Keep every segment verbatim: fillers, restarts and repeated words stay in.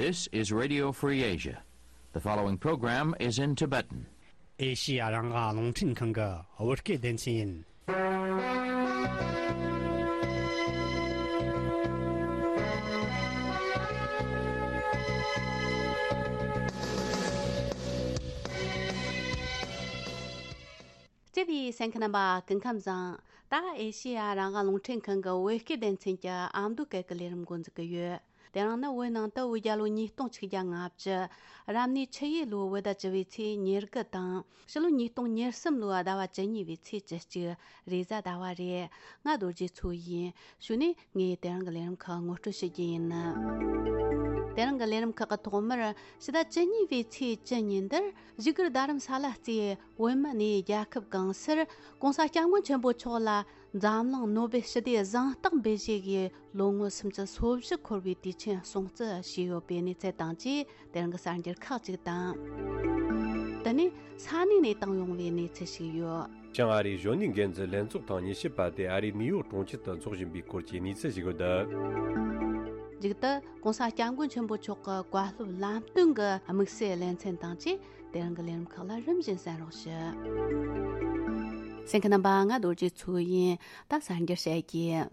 This is Radio Free Asia. The following program is in Tibetan. ཨེ་ཤི་ཡ་རང་དབང་རླུང་འཕྲིན་ཁང་གི་བོད་སྐད་སྡེ་ཚན་ཡིན། སྤྱི་པའི་གསན་མཁན་རྣམ་པ་སྐུ་ཁམས་བཟང་། ད་ཨེ་ཤི་ཡ་རང་དབང་རླུང་འཕྲིན་ཁང་གི་བོད་སྐད་སྡེ་ཚན་གྱི་ཨ་མདོ་སྐད་ཀྱི་ལས་རིམ་འགོ་འཛུགས་ཀྱི་ཡོད། དེ་རིང་ནི་བོད་ནང་དུ་བོད་རྒྱལ་ལོ་ཉིས་སྟོང་ཆིག་བརྒྱ་ལྔ་བཅུ། རབ་གནས་ཆུ་ཡོས་ལོའི་བོད་ཟླ་བཅུ་བའི་ཚེས་ཉེར་དགུ་དང་། ཕྱི་ལོ་ཉིས་སྟོང་ཉེར་གསུམ་ལོའི་ཟླ་བ་བཅུ་གཉིས་པའི་ཚེས་བཅུ་གཅིག་རེས་གཟའ་ཟླ་བ་རེད། ང་རྡོ་རྗེ་མཚོ་ཡིན། གཞུག་ནས་ངས་དེ་རིང་གི་ལས་རིམ་ཁག་ངོ་སྤྲོད་ཞུ་རྒྱུ་ཡིན། དེ་རིང་གི་ལས་རིམ་ཁག་གི་ཐོག་མར་ཕྱི་ཟླ་བཅུ་གཉིས་པའི་ཚེས་བཅུ་ཉིན་དེར་བཞུགས་སྒར་རྡ་རམ་ས་ལ་རྩེའི་བོད་མི་གནས་རྒྱལ་ཁབ་གང་སར་༸གོང་ས་༸སྐྱབས་མགོན་ཆེན་པོ་མཆོག་ལ་འཛམ་གླིང་ནོ་བེལ་ཞི་བདེའི་གཟེངས་རྟགས་འབུལ་བཞེས་ཀྱི་ལོ་ངོ་སུམ་ཅུ་སོ་བཞི་འཁོར་བའི་དུས་ཆེན་སྲུང་བརྩི་བྱས་ཡོད་པའི་གནས་ཚུལ་དང་བཅས་དེ་རིང་གི་གསར་འགྱུར་ཁག་ཅིག་དང་། དེ་ནས་ས་གནས་ནས་བཏང་ཡོང་བའི་གནས་ཚུལ་ཞིག་ཡོད། བྱང་ཨ་རིའི་གཞོན་ནུའི་འགན་འཛིན་ལྷན་ཚོགས་ཐེངས་ཉི་ཤུ་པ་དེ་ཨ་རིའི་ནིའུ་ཡོག་གྲོང་ཁྱེར་དུ་འཚོགས་བཞིན་པའི་སྐོར་གྱི་གནས་ཚུལ་ཞིག་ཡོད། མཇུག་ཏུ་༸གོང་ས་༸སྐྱབས་མགོན་ཆེན་པོ་མཆོག་གི་བཀའ་སློབ་ལམ་སྟོན་གྱི་དམིགས་བསལ་ལེ་ཚན་དང་བཅས་དེ་རིང་གི་ལས་རིམ་ཁག་ལ་རིམ་བཞིན་གསན་རོགས་ཞུ། གསན་མཁན་རྣམ་པ། ང་རྡོ་རྗེ་མཚོ་ཡིན། ད་གསར་འགྱུར་བཤད་རྒྱུ།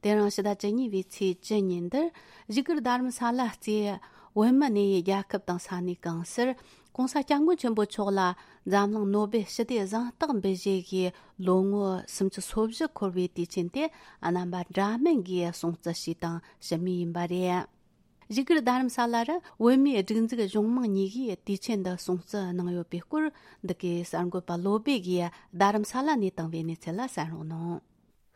དེ་རིང་ཕྱི་ཟླ་བཅུ་གཉིས་པའི་ཚེས་བཅུ་ཉིན་དེར་བཞུགས་སྒར་རྡ་རམ་ས་ལ་རྩེའི་བོད་མི་གནས་ཡུལ་རྒྱལ་ཁབ་དང་ས་གནས་གང་སར་༸གོང་ས་༸སྐྱབས་མགོན་ཆེན་པོ་མཆོག་ལ་འཛམ་གླིང་ནོ་བེལ་ཞི་བདེའི་གཟེངས་རྟགས་འབུལ་བཞེས་ཀྱི་ལོ་ངོ་སུམ་ཅུ་སོ་བཞི་འཁོར་བའི་དུས་ཆེན་དེ་རྣམ་པ་འདྲ་མིན་གྱིས་སྲུང་བརྩི་ཞུས་དང་ཞུ་མུས་ཡིན་པ་རེད། བཞུགས་སྒར་རྡ་རམ་ས་ལ་རུ་བོད་མིའི་སྒྲིག་འཛུགས་གཞུང་མང་གཉིས་ཀས་དུས་ཆེན་འདི་སྲུང་བརྩི་གནང་ཡོད་པའི་སྐོར་འདི་གའི་གསར་འགོད་པ་བློ་སྦེ་གིས་རྡ་རམ་ས་ལ་ནས་བཏང་བའི་གནས་ཚུལ་ལ་གསན་རོགས་གནང་།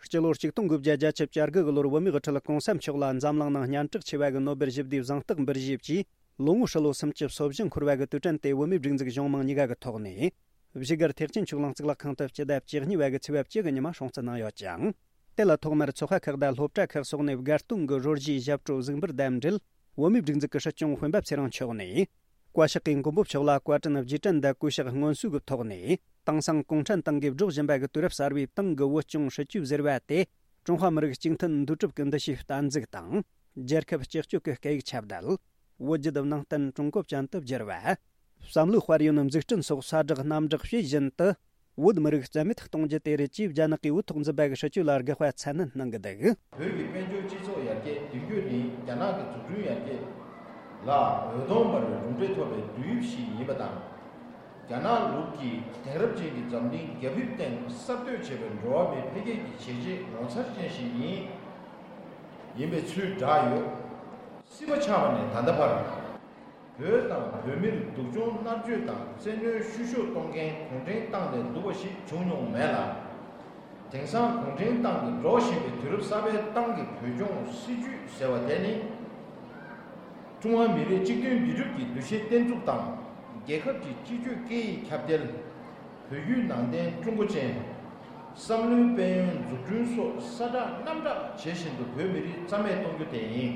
སྤྱི་ལོ་ཆིག་སྟོང་དགུ་བརྒྱ་བརྒྱད་ཅུ་གྱ་དགུ་གི་ལོར་བོད་མིའི་དབུ་ཁྲིད་༸གོང་ས་མཆོག་ལ་འཛམ་གླིང་ནང་སྙན་གྲགས་ཆེ་བ་གི་ནོ་བེལ་ཞི་བདེའི་གཟེངས་རྟགས་འབུལ་བཞེས་ཀྱིས་ལོ་ངོ་ཧྲིལ་ལོ་སུམ་ཅུ་སོ་བཞི་འཁོར་བ་གི་དུས་དྲན་དེ་བོད་མིའི་སྒྲིག་འཛུགས་གཞུང་མང་གཉིས་ཀ་གི་ཐོག་ནས་བཞུགས་སྒར་ཐེག་ཆེན་ཆོས་གླིང་གཙུག་ལག་ཁང་དུ་སྤྱི་ཟླ་བཅུ་གཉིས་པ་གི་ཚེས་པ་བཅུ་གི་ཉི་མ་སྲུང་བརྩི་གནང་ཡོད་ཅིང་། དེ་ལ་ཐོག་མར་ཚོགས་པ་ཁག་དང་སློབ་གྲྭ་ཁག་སོགས་ནས་དགའ་སྟོན་གྱི་རོལ་གཞས་ཞབས་བྲོ་གཟིགས་འབུལ་དང་འབྲེལ་བོད་མིའི་སྒྲིག་འཛུགས་ཀྱི་སྲིད་སྐྱོང་སྤེན་པ་ཚེ་རིང་མཆོག་ནས། བཀའ་ཤག་གིས་མགོན་པོ་མཆོག་ལ་བཀའ་དྲིན་རྗེས་དྲན་དང་གུས་ཕྱག་སྔོན་གསོལ་གྱི་ཐོག་ནས། དེང་སང་གུང་ཁྲན་ཏང་གིས་སྒྲོག་བཞིན་པ་གི་དུས་རབས་གསར་བའི་ཏང་གི་བོད་སྐྱོང་སྲིད་ཇུས་ཟེར་བ་དེ། ཀྲུང་ཧྭ་མི་རིགས་གཅིག་མཐུན་འདུས་གྲུབ་ཀྱི་འདུ་ཤེས་གཏན་འཛུགས་དང་། རྒྱལ་ཁབ་སྤྱི་སྤྱོད་ཀྱི་སྐད་ཡིག་ཁྱབ་གདལ། བོད་བརྒྱུད་ནང་བསྟན་ཀྲུང་གོ་ཅན་དུ་བསྒྱུར་བ། བསམ་བློའི་དཔལ་ཡོན་འཛུགས་སྐྲུན་སོགས་གསལ་བསྒྲགས་རྣམ་དག་བྱེད་བཞིན་དུ། བོད་མི་རིགས་རྩ་མེད་གཏོང་རྒྱུ་དེ་རེད་ཅེས་རྒྱ་ནག་གིས་བོད་ཐོག་འཛིན་པ་གི་སྲིད་ཇུས་ལ་དགག་པ་ཚ་ནན་གནང་གི་འདུག། བོད་ཀྱི་དཔལ་འབྱོར་སྤྱི་ཚོགས་ཡར་རྒྱས་མདུན་སྐྱོད་ནི་རྒྱ་ནག་གི་འཛུགས་སྐྲུན་ཡར་རྒྱས་ལ་འོད་སྟོང་འབར་བའི་གྲུབ་འབྲས་ཐོབ་པའི་བསྡུར་དབྱིབས་ཤིག་ཡིན་པ་དང་། རྒྱ་ནག་ལུགས་ཀྱི་དེང་རབས་ཅན་གྱི་འཛམ་གླིང་རྒྱ་ཁྱབ་སྟེང་གསར་གཏོད་བྱས་པའི་འགྲོ་བ་མིའི་འཕེལ་རྒྱས་ཀྱི་བྱས་རྗེས་ངོ་མཚར་ཅན་ཞིག་ཡིན། ཡིན་པའི་ཚུལ་བསྒྲགས་ཡོད། སྲིད་པ་ཆགས་པ་ནས་ད་ལྟ་བར། བོད་དང་བོད་མིར་སྡུག་སྦྱོང་མནར་གཅོད་དང་བཙན་གནོན་བཤུ་གཞོག་གཏོང་མཁན་གུང་ཁྲན་ཏང་ལས་སྡུག་པ་ཞིག་བྱུང་མྱོང་མེད་ལ། དེང་སང་གུང་ཁྲན་ཏང་གིས་འགྲོ་བཞིན་པའི་དུས་རབས་གསར་པའི་ཏང་གི་བོད་སྐྱོང་སྲིད་ཇུས་ཟེར་བ་དེ་ནི། ཀྲུང་ཧྭ་མི་རིགས་གཅིག་མཐུན་འདུས་གྲུབ་ཀྱི་འདུ་ཤེས་བརྟན་ཚུགས་དང་། རྒྱལ་ཁབ་ཀྱི་སྤྱི་སྤྱོད་སྐད་ཡིག་ཁྱབ་གདལ། བོད་བརྒྱུད་ནང་བསྟན་ཀྲུང་གོ་ཅན། བསམ་བློའི་དཔལ་ཡོན་འཛུགས་སྐྲུན་སོགས་གསལ་བསྒྲགས་རྣམ་དག་བྱེད་བཞིན་དུ་བོད་མི་རིགས་རྩ་མེད་གཏོང་རྒྱུ་དེ་ཡིན།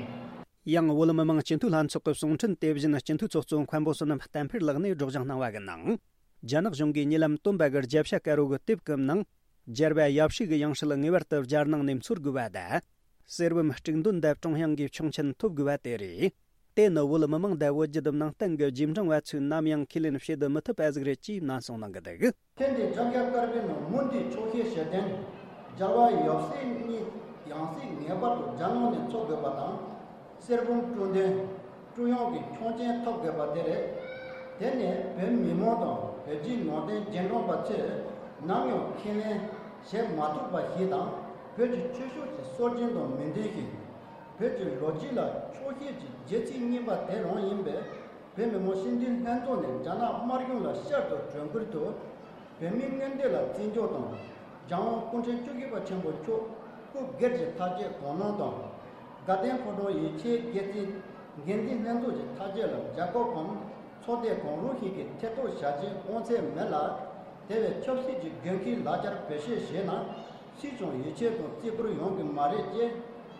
ཡང་བོད་མི་མང་སྤྱི་འཐུས་ལྷན་ཚོགས་ཀྱི་གསུང་འཕྲིན་དེ་བཞིན་སྤྱི་འཐུས་ཚོགས་གཙོ་མཁན་པོ་བསོད་ནམས་བསྟན་འཕེལ་ལགས་ནས་སྒྲོག་སྦྱང་གནང་བ་གི་ནང་། རྒྱ་ནག་གཞུང་གིས་ཉེ་ལམ་བཏོན་པ་གི་རྒྱལ་ཤ་དཀར་རོ་གི་དེབ་ཀྱི་ནང་། རྒྱལ་བ་ཡབ་སྲས་ཀྱི་ཡང་སྲིད་ངེས་པར་དུ་རྒྱལ་ནང་ནས་འཚོལ་དགོས་པ་དང་། གསེར་བུམ་དཀྲུག་འདོན་དང་ཀྲུང་དབྱང་གིས་ཆོག་མཆན་ཐོབ་དགོས་པ་དེ་རེད། དེ་ནི་བོད་མི་མང་དང་བོད་བརྒྱུད་ནང་བསྟན་གྱི་རྗེས་འབྲང་བ་ཚོས་ནམ་ཡང་ཁས་ལེན་བྱེད་དུ་མི་ཐུབ་པ་ཟིག་རེད་ཅེས་ནན་གསུངས་གནང་གི་འདུག། ཐེངས་འདིའི་རྒྱལ་ཤ་དཀར་པོའི་ནང་མུ་མཐུད་ཆོག་ཤེས་བྱེད་དོན། རྒྱལ་བ་ཡབ་སྲས་གཉིས་ཡང་སྲིད་ངེས་པར་དུ་རྒྱལ་ནང་ནས་འཚོལ་དགོས་པ་དང་། གསེར་བུམ་དཀྲུག་འདོན། ཀྲུང་དབྱང་གི་ཆོག་མཆན་ཐོབ་དགོས་པ་དེ་རེད། དེ་ནི་བོད་མི་མང་དང་བོད་བརྒྱུད་ནང་བསྟན་རྗེས་འབྲང་པ་ཚོས་ནམ་ཡང་ཁས་ལེན་བྱེད་མ་ཐུབ་པ་ཞིག་དང་། བོད་ཀྱི་ཆོས་ཕྱོགས་ཀྱི་སྲོལ་རྒྱུན་དང་མི་མཐུན་ཞིང་། བོད་ཀྱི་ལོ་རྒྱུས་ལ་ཆོག་ཤེས་ཀྱི་རྒྱལ་སྲིད་རྙིང་པ་དེ་རང་ཡིན་པས། བོད་མི་མང་སྤྱི་འཐུས་ལྷན་ཚོགས་ནས་རྒྱ་ནག་དམར་གཞུང་ལ་བསྐྱར་དུ་གྲོས་འགོ་ཐོག་བོད་མིའི་མངོན་འདོད་ལ་བརྩི་འཇོག་དང་། རྒྱལ་དབང་སྐུ་ཕྲེང་བཅུ་བཞི་པ་ཆེན་པོ་མཆོག་སྐུ་སྒེར་གྱི་ཐག་བཅད་དགོངས་གནང་དང་། དགའ་ལྡན་ཕོ་བྲང་ཡིད་ཆེས་སྒེར་རྩིས་འགན་འཛིན་ལྷན་ཚོགས་ཀྱི་ཐག་བཅད་ལ་རྒྱལ་ཁབ་གམ་ཚོགས་སྡེ་གང་རུང་ཞིག་གིས་ཐེ་གཏོགས་བྱ་རྒྱུའི་དབང་ཚད་མེད་ལ། དེ་བས་ཆབ་སྲིད་ཀྱི་འགན་འཁྲིའི་ལག་ཆར་བེད་སྤྱོད་བྱས་ན། སུས་ཀྱང་ཡིད་ཆེས་དང་བརྩི་བཀུར་ཡོང་གི་མ་རེད་ཅེས་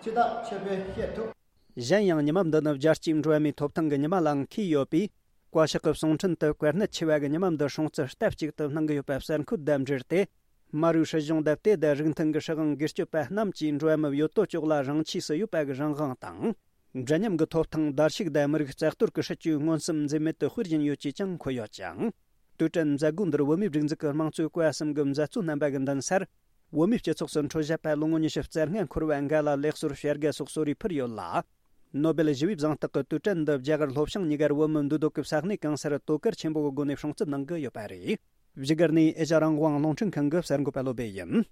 ཕྱི་ཐག་ཆོད་པོས་བཤད་ཐུབ། གཞན་ཡང་ཉི་མ་འདི་ནི་རྒྱལ་སྤྱིའི་འགྲོ་བ་མིའི་ཐོབ་ཐང་གི་ཉི་མ་ལའང་འཁེལ་ཡོད་པས། བཀའ་ཤག་གི་གསུང་འཕྲིན་དུ་བཀའ་གནད་ཆེ་བ་གི་ཉི་མ་འདི་སྲུང་བརྩི་སྟབས་གཅིག་ཏུ་གནང་གི་ཡོད་པ་གསལ་འཁོད་དང་འབྲེལ་ཏེ། མ་རུའི་སྲིད་གཞུང་དང་དེ་དང་རིགས་མཐུན་གྱི་སྲིད་དབང་སྒེར་གཅོད་པ་རྣམས་ཀྱིས་འགྲོ་བ་མིའི་ཡོད་དོ་ཅོག་ལ་རང་ཆས་སུ་ཡོད་པ་གི་རང་དབང་དང་། འདྲ་མཉམ་གྱི་ཐོབ་ཐང་བརྡལ་བཤིག་དང་མི་རིགས་རྩ་གཏོར་གྱི་སྲིད་ཇུས་མངོན་སུམ་འཛེམ་མེད་དུ་སྤེལ་བཞིན་ཡོད་ཅེས་ཀྱང་འཁོད་ཡོད་ཅིང་། དུས་དྲན་མཛད་སྒོ་འདིར་བོད་མིའི་སྒྲིག་འཛུགས་ཀྱི་དམངས་གཙོའི་བཀའ་གསུམ་གྱི་མཛད་གཙོ་རྣམ་པ་གིས་མདུན་སར། བོད་མིའི་སྤྱི་ཚོགས་སུ་འཕྲོད་བཞག་པ་ལོ་ངོ་ཉི་ཤུ་རྩ་ལྔ་འཁོར་བར་འགའ་ལ་ལེགས་གསོལ་ཞལ་དགའ་སོགས་གསོལ་རས་ཕུལ་ཡོད་ལ། ནོ་སྦེལ་ཞི་བའི་གཟེངས་རྟགས་ཀྱི་དུས་དྲན་འདི་རྒྱ་གར་ལྷོ་བྱང་གཉིས་ཀར་བོད་མི་འདུས་སྡོད་ཀྱི་ས་གནས་གང་སར་དོ་ཁུར་ཆེན་པོའི་སྒོ་ནས་སྲུང་བརྩི་གནང་གི་ཡོད་པ་རེད། བཞུགས་སྒར་ནས་ཨེ་ཤ་རང་དབང་རླུང་འཕྲིན་ཁང་གི་གསར་འགོད་པ་བློ་བྷེ་ཡིན།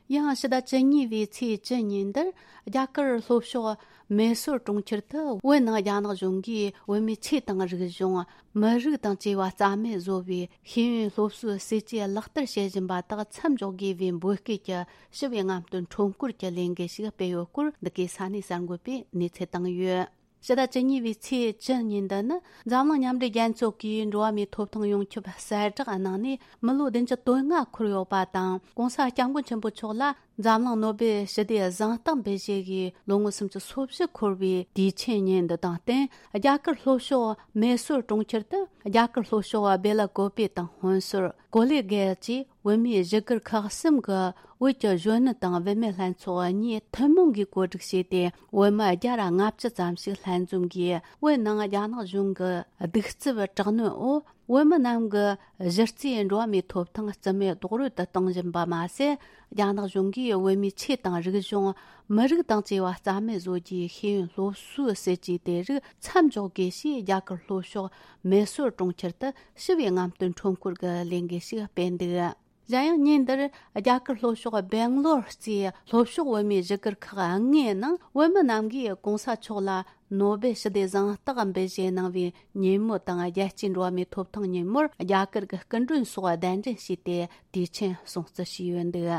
ཡང་ཕྱི་ཟླ་བཅུ་གཉིས་པའི་ཚེས་བཅུ་ཉིན་འདིར་རྒྱ་གར་ལྷོ་ཕྱོགས་མེ་སོར་གྲོང་ཁྱེར་དུ་བོད་ནང་རྒྱ་ནག་གཞུང་གིས་བོད་མིའི་ཆོས་དང་རིག་གཞུང་། མི་རིགས་དང་བཅས་པ་རྩ་མེད་བཟོ་བའི་ཤེས་ཡོན་སློབ་གསོའི་སྲིད་ཇུས་ལག་བསྟར་བྱེད་བཞིན་པ་དག་མཚམས་འཇོག་དགོས་པའི་འབོད་སྐུལ་གྱི་ཞི་བའི་རྔམ་སྟོན་ཁྲོམ་སྐོར་གྱི་ལས་འགུལ་ཞིག་སྤེལ་ཡོད་སྐོར་འདི་གའི་ས་གནས་གསར་འགོད་པས་གནས་ཚུལ་བཏང་ཡོད། ཕྱི་ཟླ་བཅུ་གཉིས་པའི་ཚེས་བཅུ་ཉིན་འདི་ནི་འཛམ་གླིང་མཉམ་འབྲེལ་རྒྱལ་ཚོགས་ཀྱིས་འགྲོ་བ་མིའི་ཐོབ་ཐང་ཡོངས་ཁྱབ་གསལ་བསྒྲགས་གནང་ནས་མི་ལོ་བདུན་ཅུ་དོན་ལྔ་འཁོར་ཡོད་པ་དང་། ྋགོང་ས་ྋསྐྱབས་མགོན་ཆེན་པོ་མཆོག་ལ་འཛམ་གླིང་ནོ་སྦེལ་ཞི་བདེའི་གཟེངས་རྟགས་འབུལ་བཞེས་ཀྱི་ལོ་ངོ་སུམ་ཅུ་སོ་བཞི་འཁོར་བའི་དུས་ཆེན་ཉིན་འདི་དང་བསྟུན། རྒྱ་གར་ལྷོ་ཕྱོགས་མེ་སོར་གྲོང་ཁྱེར་དུ་རྒྱ་གར་ལྷོ་ཕྱོགས་སྦེ་ལ་ཀོ་པེ་དང་ཧོན་སུར། ཀོ་ལེ་གྷལ་བཅས་བོད་མིའི་བཞུགས་སྒར་ཁག་གསུམ་གྱི་བོད་ཀྱི་གཞོན་ནུ་དང་བུད་མེད་ལྷན་ཚོགས་གཉིས་ཐུན་མོང་གིས་གོ་སྒྲིག་བྱས་ཏེ། བོད་མི་བརྒྱ་ར་ལྔ་བཅུ་ཙམ་ཞིག་ལྷན་འཛོམས་ཀྱིས་བོད་ནང་རྒྱ་ནག་གཞུང་གི་གདུག་རྩུབ་དྲག་གནོན་འོག་བོད་མི་རྣམས་ཀྱི་གཞི་རྩའི་འགྲོ་བ་མིའི་ཐོབ་ཐང་རྩིས་མེད་རྡོག་རོལ་དུ་གཏོང་བཞིན་པ་མ་ཟད། རྒྱ་ནག་གཞུང་གིས་བོད་མིའི་ཆོས་དང་རིག་གཞུང་། མི་རིགས་དང་བཅས་པ་རྩ་མེད་བཟོ་རྒྱུའི་ཤེས་ཡོན་སློབ་གསོའི་སྲིད་ཇུས་དེ་རིགས་མཚམས་འཇོག་དགོས་ཞེས་རྒྱ་གར་ལྷོ་ཕྱོགས་མེ་སོར་གྲོང་ཁྱེར་དུ་ཞི་བའི་རྔམ་སྟོན་ཁྲོམ་སྐོར་གྱི་ལས་འགུལ་ཞིག་སྤེལ་འདུག་གཞན་ཡང་ཉིན་འདིར་རྒྱ་གར་ལྷོ་ཕྱོགས་སྦེང་ལོར་གཙོས་ལྷོ་ཕྱོགས་བོད་མིའི་བཞུགས་སྒར་ཁག་ལྔའི་ནང་བོད་མི་རྣམས་ཀྱིས་ྋགོང་ས་མཆོག་ལ་ནོ་སྦེལ་ཞི་བདེའི་གཟེངས་རྟགས་འབུལ་བཞེས་གནང་བའི་ཉིན་མོ་དང་། རྒྱལ་སྤྱིའི་འགྲོ་བ་མིའི་ཐོབ་ཐང་ཉིན་མོར་རྒྱ་གར་གྱི་སྐུ་མགྲོན་སོགས་གདན་འདྲེན་བྱས་ཏེ་དུས་ཆེན་སྲུང་བརྩི་བྱས་ཡོད་འདུག་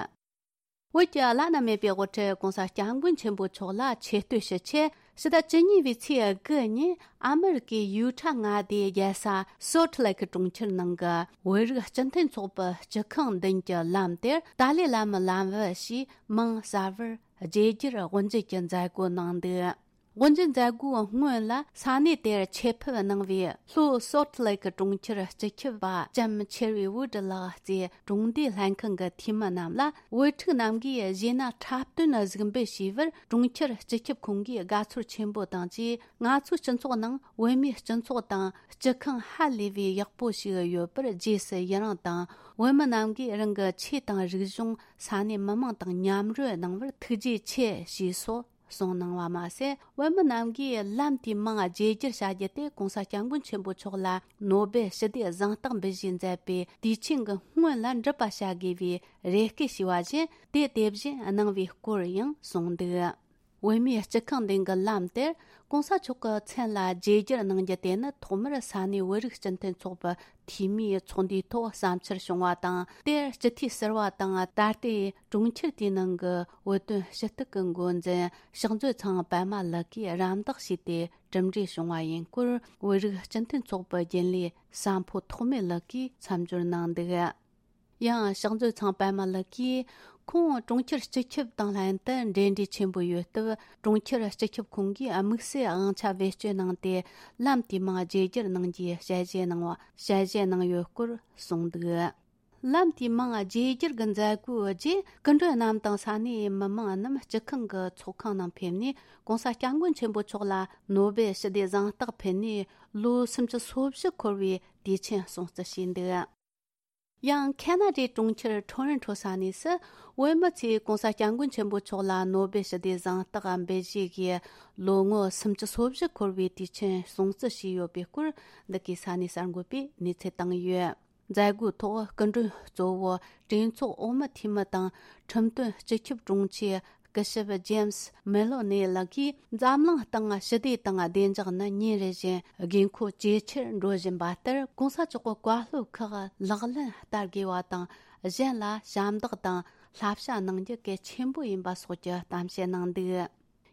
བོད་ཀྱི་བླ་ན་མེད་པའི་དབུ་ཁྲིད་ྋགོང་ས་ྋསྐྱབས་མགོན་ཆེན་པོ་མཆོག་ལ་ཆེ་བསྟོད་ཞུ་ཆེད། ཕྱི་ཟླ་བཅུ་གཉིས་པའི་ཚེས་དགུ་ཉིན་ཨ་མི་རི་ཀའི་ཡུ་ཊ་མངའ་སྡེའི་རྒྱལ་ས་སོལ་ཊི་ལེ་ཀི་གྲོང་ཁྱེར་ནང་གི་བོད་རིགས་སྤྱི་མཐུན་ཚོགས་པའི་སྤྱི་ཁང་མདུན་གྱི་ལམ་དེར་ཏཱ་ལའི་བླ་མའི་ལམ་བུ་ཞེས་མིང་གསར་བར་བརྗེ་བསྒྱུར་དབུ་འབྱེད་ཀྱི་མཛད་སྒོ་གནང་འདུག་དབུ་འབྱེད་མཛད་སྒོའི་སྔོན་ལ་ས་གནས་དེར་ཆེད་ཕེབས་གནང་བའི་ལྷོ་སོལ་ཊི་ལེ་ཀི་གྲོང་ཁྱེར་སྤྱི་ཁྱབ་པ་ལྕམ་ཆེར་བི་ཝུ་ཌི་ལགས་བཅས་གྲོང་སྡེའི་ལྷན་ཁང་གི་འཐུས་མི་རྣམས་ལ་བོད་ཕྲུག་རྣམས་ཀྱིས་གཞས་སྣ་འཁྲབ་སྟོན་གཟིགས་འབུལ་ཞུས་པར། གྲོང་ཁྱེར་སྤྱི་ཁྱབ་ཁོང་གིས་དགའ་ཚོར་ཆེན་པོ་དང་བཅས། ང་ཚོའི་སྤྱི་ཚོགས་ནང་བོད་མིའི་སྤྱི་ཚོགས་དང་སྤྱི་ཁང་ཧ་ལས་པའི་ཡག་པོ་ཞིག་ཡོད་པར་རྗེས་སུ་ཡི་རང་དང་། བོད་མི་རྣམས་ཀྱིས་རང་གི་ཆོས་དང་རིག་གཞུང་ས་གནས་མི་མང་དང་མཉམ་རོལ་གནང་བར་ཐུགས་རྗེ་ཆེ་ཞེས་སོགས་གསུངས་གནང་བ་མ་ཟད། བོད་མི་རྣམས་ཀྱིས་ལམ་དེའི་མིང་བརྗེ་བསྒྱུར་བྱ་རྒྱུ་དེ་ྋགོང་ས་ྋསྐྱབས་མགོན་ཆེན་པོ་མཆོག་ལ་ནོ་སྦེལ་ཞི་བདེའི་གཟེངས་རྟགས་འབུལ་བཞེས་མཛད་པའི་དུས་ཆེན་གྱི་སྔོན་ལ་འགྲུབ་པ་བྱ་དགོས་པའི་རེ་སྐུལ་ཞུས་པ་བཞིན། དེ་དེ་བཞིན་གནང་བའི་སྐོར་ཡང་གསུངས་འདུག་བོད་མིའི་སྤྱི་ཁང་མདུན་གྱི་ལམ་དེར་ྋགོང་ས་མཆོག་གི་མཚན་ལ་བརྗེ་བསྒྱུར་གནང་རྒྱུ་དེ་ནི་ཐོག་མར་ས་གནས་བོད་རིགས་སྤྱི་མཐུན་ཚོགས་པའི་འཐུས་མིའི་ཚོགས་འདུའི་ཐོག་བསམ་འཆར་བྱུང་བ་དང་། དེར་སྤྱི་འཐུས་ཟུར་པ་དང་། ད་ལྟའི་གྲོང་ཁྱེར་དེའི་ནང་གི་བོད་དོན་ཞུ་གཏུག་གི་འགོ་འཛིན་ཕྱག་མཛོད་ཚང་པད་མ་ལགས་ཀྱིས་རམ་འདེགས་བྱས་ཏེ་གྲུབ་འབྲས་བྱུང་བ་ཡིན་སྐོར། བོད་རིགས་སྤྱི་མཐུན་ཚོགས་པའི་རྒྱུན་ལས་ཟམ་ཕོ་ཐོགས་མེད་ལགས་ཀྱིས་མཚམས་སྦྱོར་གནང་འདུག་ཡང་ཕྱག་མཛོད་ཚང་པད་མ་ལགས་ཀྱིས། ཁོང་གྲོང་ཁྱེར་སྤྱི་ཁྱབ་དང་ལྷན་དུ་འབྲེལ་འདྲིས་ཆེན་པོ་ཡོད་སྟབས། གྲོང་ཁྱེར་སྤྱི་ཁྱབ་ཁོང་གིས་དམིགས་བསལ་དབང་ཆ་བེད་སྤྱོད་གནང་སྟེ། ལམ་དེའི་མིང་བརྗེ་བསྒྱུར་གནང་རྒྱུའི་ཞལ་བཞེས་གནང་བ། ཞལ་བཞེས་གནང་ཡོད་སྐོར་གསུངས་འདུག་ལམ་དེའི་མིང་བརྗེ་བསྒྱུར་གྱི་མཛད་སྒོའི་རྗེས། སྐུ་མགྲོན་རྣམས་དང་ས་གནས་མི་མང་རྣམས་སྤྱི་ཁང་གི་ཚོགས་ཁང་ནང་ཕེབས་ནས། ྋགོང་ས་ྋསྐྱབས་མགོན་ཆེན་པོ་མཆོག་ལ་ནོ་སྦེལ་ཞི་བདེའི་གཟེངས་རྟགས་ཕུལ་ནས། ལོ་སུམ་ཅུ་སོ་བཞི་འཁོར་བའི་དུས་ཆེན་སྲུང་བརྩི་བྱས་འདུག་ཡང་ཁེ་ན་ཌའི་གྲོང་ཁྱེར་ཊོ་རོན་ཊོ་ས་གནས་སུ་བོད་མི་ཚོས་ྋགོང་ས་ྋསྐྱབས་མགོན་ཆེན་པོ་མཆོག་ལ་ནོ་སྦེལ་ཞི་བདེའི་གཟེངས་རྟགས་འབུལ་བཞེས་ཀྱི་ལོ་ངོ་སུམ་ཅུ་སོ་བཞི་འཁོར་བའི་དུས་ཆེན་སྲུང་བརྩི་བྱས་ཡོད་པའི་སྐོར། འདི་གའི་ས་གནས་གསར་འགོད་པས་གནས་ཚུལ་བཏང་ཡོད། མཛད་སྒོའི་ཐོག་སྐུ་མགྲོན་གཙོ་བོ་གྲོས་ཚོགས་འོག་མའི་འཐུས་མི་དང་། ཁྲིམས་དོན་སྤྱི་ཁྱབ་དྲུང་ཆེ་སྐུ་ཞབས་ཇེམ་སི་མེ་ལོ་ནེ་ལགས་ཀྱིས། འཛམ་གླིང་སྟེང་ཞི་བདེ་དང་བདེ་འཇགས་ནི་ཉིན་རེ་བཞིན་དགོས་མཁོ་ཇེ་ཆེར་འགྲོ་བཞིན་པ་ལྟར། ྋགོང་ས་མཆོག་གི་བཀའ་སློབ་ཁག་ལག་ལེན་བསྟར་དགོས་པ་དང་། གཞན་ལ་ཞབས་འདེགས་དང་བསླབ་བྱ་གནང་རྒྱུ་གལ་ཆེན་པོ་ཡིན་པ་སོགས་ཀྱི་གཏམ་བཤད་གནང་འདུག་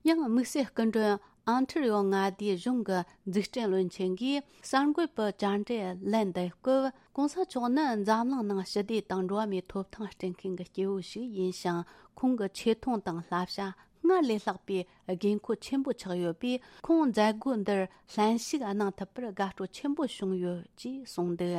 ཡང་དམིགས་བསལ་སྐུ་མགྲོན་ཨོན་ཊ་རི་ཡོ་མངའ་སྡེའི་གཞུང་གི་འཛུགས་སྐྲུན་བློན་ཆེན་གྱིས་གསར་འགོད་པའི་བཅར་འདྲི་ལན་འདེབས་སྐབས། ྋགོང་ས་མཆོག་ནི་འཛམ་གླིང་ནང་ཞི་བདེ་དང་འགྲོ་བ་མིའི་ཐོབ་ཐང་སྤྲད་མཁན་གྱི་སྐྱེས་བུ་ཞིག་ཡིན་ཞིང་། ཁོང་གི་ཆེ་མཐོང་དང་བསླབ་བྱ་སྔར་ལས་ལྷག་པའི་དགོས་མཁོ་ཆེན་པོ་ཆགས་ཡོད་པས། ཁོང་མཛད་སྒོ་འདིར་ལྷན་ཞུགས་གནང་ཐུབ་པར་དགའ་སྤྲོ་ཆེན་པོ་བྱུང་ཡོད་ཅེས་གསུངས་འདུག་